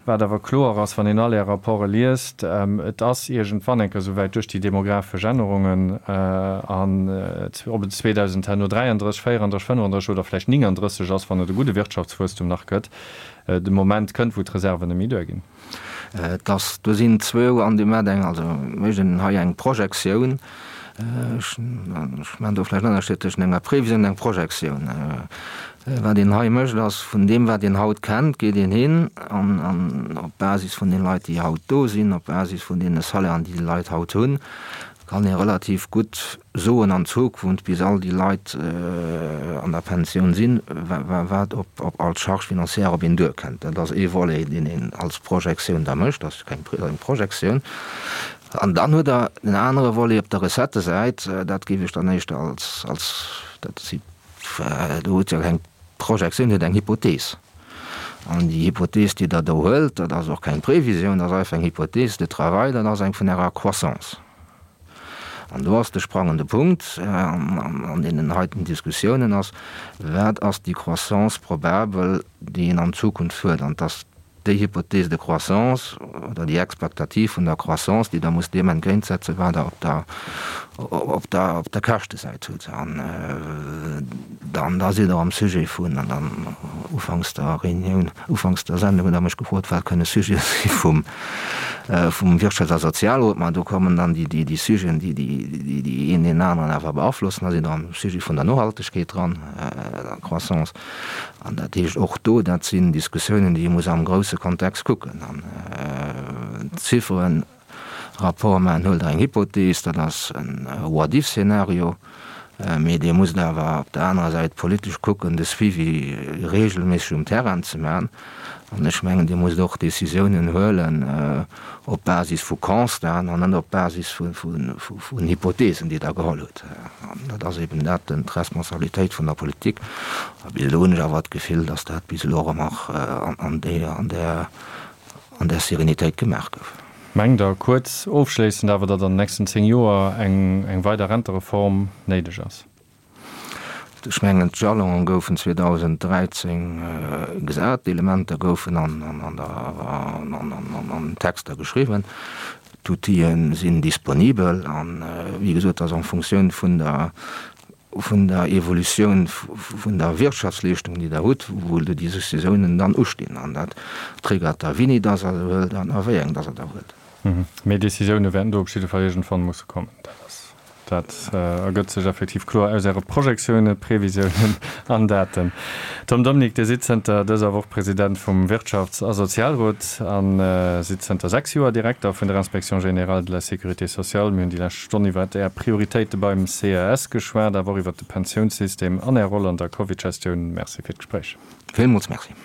Speaker 2: wat awer kloer ass, wann een all Är Rapporte liest, et ass iergendwann eng Kéier souwäit duerch déi demografesch Ännerungen an ob et 2000 herno 33, 34, 35 oder vläicht 39 ass, wann et e gudde Wirtschaftswuesstum nach gëtt, de Moment kënnt, wou d'Reserven net méi duerginn.
Speaker 3: Et ass, do sinn zwou an deem mat eng, also mécht een hei eng Projektioun, ech maachen do vläicht en Ënnerscheed tëschent enger Previsioun an enger Projektioun. Wat een hei mécht, ass, vun deem wat een haut kennt, geet een hin an, an op Basis vun den Leit, déi haut do sinn, op Basis vun deene Salairen, déi déi Leit haut hunn, kann ee relativ gutt soen an Zukunft, bis all déi Leit an der Pensioun sinn, wat op all Charge financière op een duerkënnt. Dat ass ee Volet, deen een als Projektioun da mécht, dat ass keng eng Projektioun. An dann hutt Der en anere Volet op der Recettesäit, dat géif ech dann éischter als, als, dat si, do hutt Der keng Projektioun, Dir hutt eng Hypothees. An déi Hypothees, déi Der do huelt, dat ass och keng Previsioun, dat ass einfach eng Hypothèse de travail, dat ass eng vun Ärer Croissance. An do ass de sprangende Punkt an deenen heiten Diskussiounen ass, Wat ass déi Croissance probabel, déi een an Zukunft huet? An et ass déi Hypothèse de croissance oder déi Expectative vun der Croissance, déi Der musst deem entgéintsetzen, wat Der op der, op der, op der Käschtesäit hutt. An dann, da sidd Der am Sujet vun, an dann ufanks der Reunioun, ufanks der Sendung hutt Der mech gefrot, wat kënne Sujete si vum, vum Wirtschafts a Sozialrot. Ma do kommen dann déi, déi, déi Sujeten, déi, déi, déi een deen aneren awer beaflossen. Da sidd Der am Sujet vun der Nohaltegkeet dran, der Croissance. An dat heescht och do, dat sinn Diskussiounen, déi ee muss am grousse Kontext kucken. An d'Zifferen, Rapport maachen, huelt Der eng Hypothees, dat ass e What-if-Szenario. Mee Dir musst awer op der anerer Säit politesch kucken, de Suivi regelméisseg um Terrain ze maachen. An ech mengen, Dir musst och Décisiounen huelen op Basis vu Constaten an net op Basis vun Hypothesen, déi Der geholl hutt. An dat ass eben dat, d'Responsabilitéit vun der Politik. A bis elo hunn ech awer d'Gefill, dass dat bis elo och ëmmer an där an där Serenitéit gemaach gouf.
Speaker 2: Mengt Der, kuerz ofschléissend awer, datt an den nächsten 10 Joer eng eng weider Rentereform néideg ass?
Speaker 3: Ech mengen, d'Jalonen goufen 2013 gesat, d'Elementer goufen an an Texter geschriwwen, d'Outile sinn disponibel an, wéi gesot, ass en Fonctioun vun der vun der Evolutioun vun der Wirtschaftsleeschtung, déi Der hutt, wou déi Décisiounen dann ustinn. An dat triggert da, wéini dass Der se huelt an a wéi eng dass Der der huelt.
Speaker 2: Mee Décisioune wäerten do op jidde Fall iergendwann musse kommen. Dat ass, dat ergëtt sech effektiv kloer aus Äre Projektiounen, Previsiounen an Daten. Tom Dominique, Dir sidd zënter dëser Woch President vum Wirtschafts a Sozialrot a sidd zënter 6 Joer Direkter vun der Inspection générale de la sécurité sociale. Mir hunn déi lescht Stonn iwwert Är Prioritéite beim CES geschwat, awer och iwwert de Pensiounssystem an Är Roll an der Covid-Gestioun. Merci fir d'Gespréich.
Speaker 3: Villmools Merci.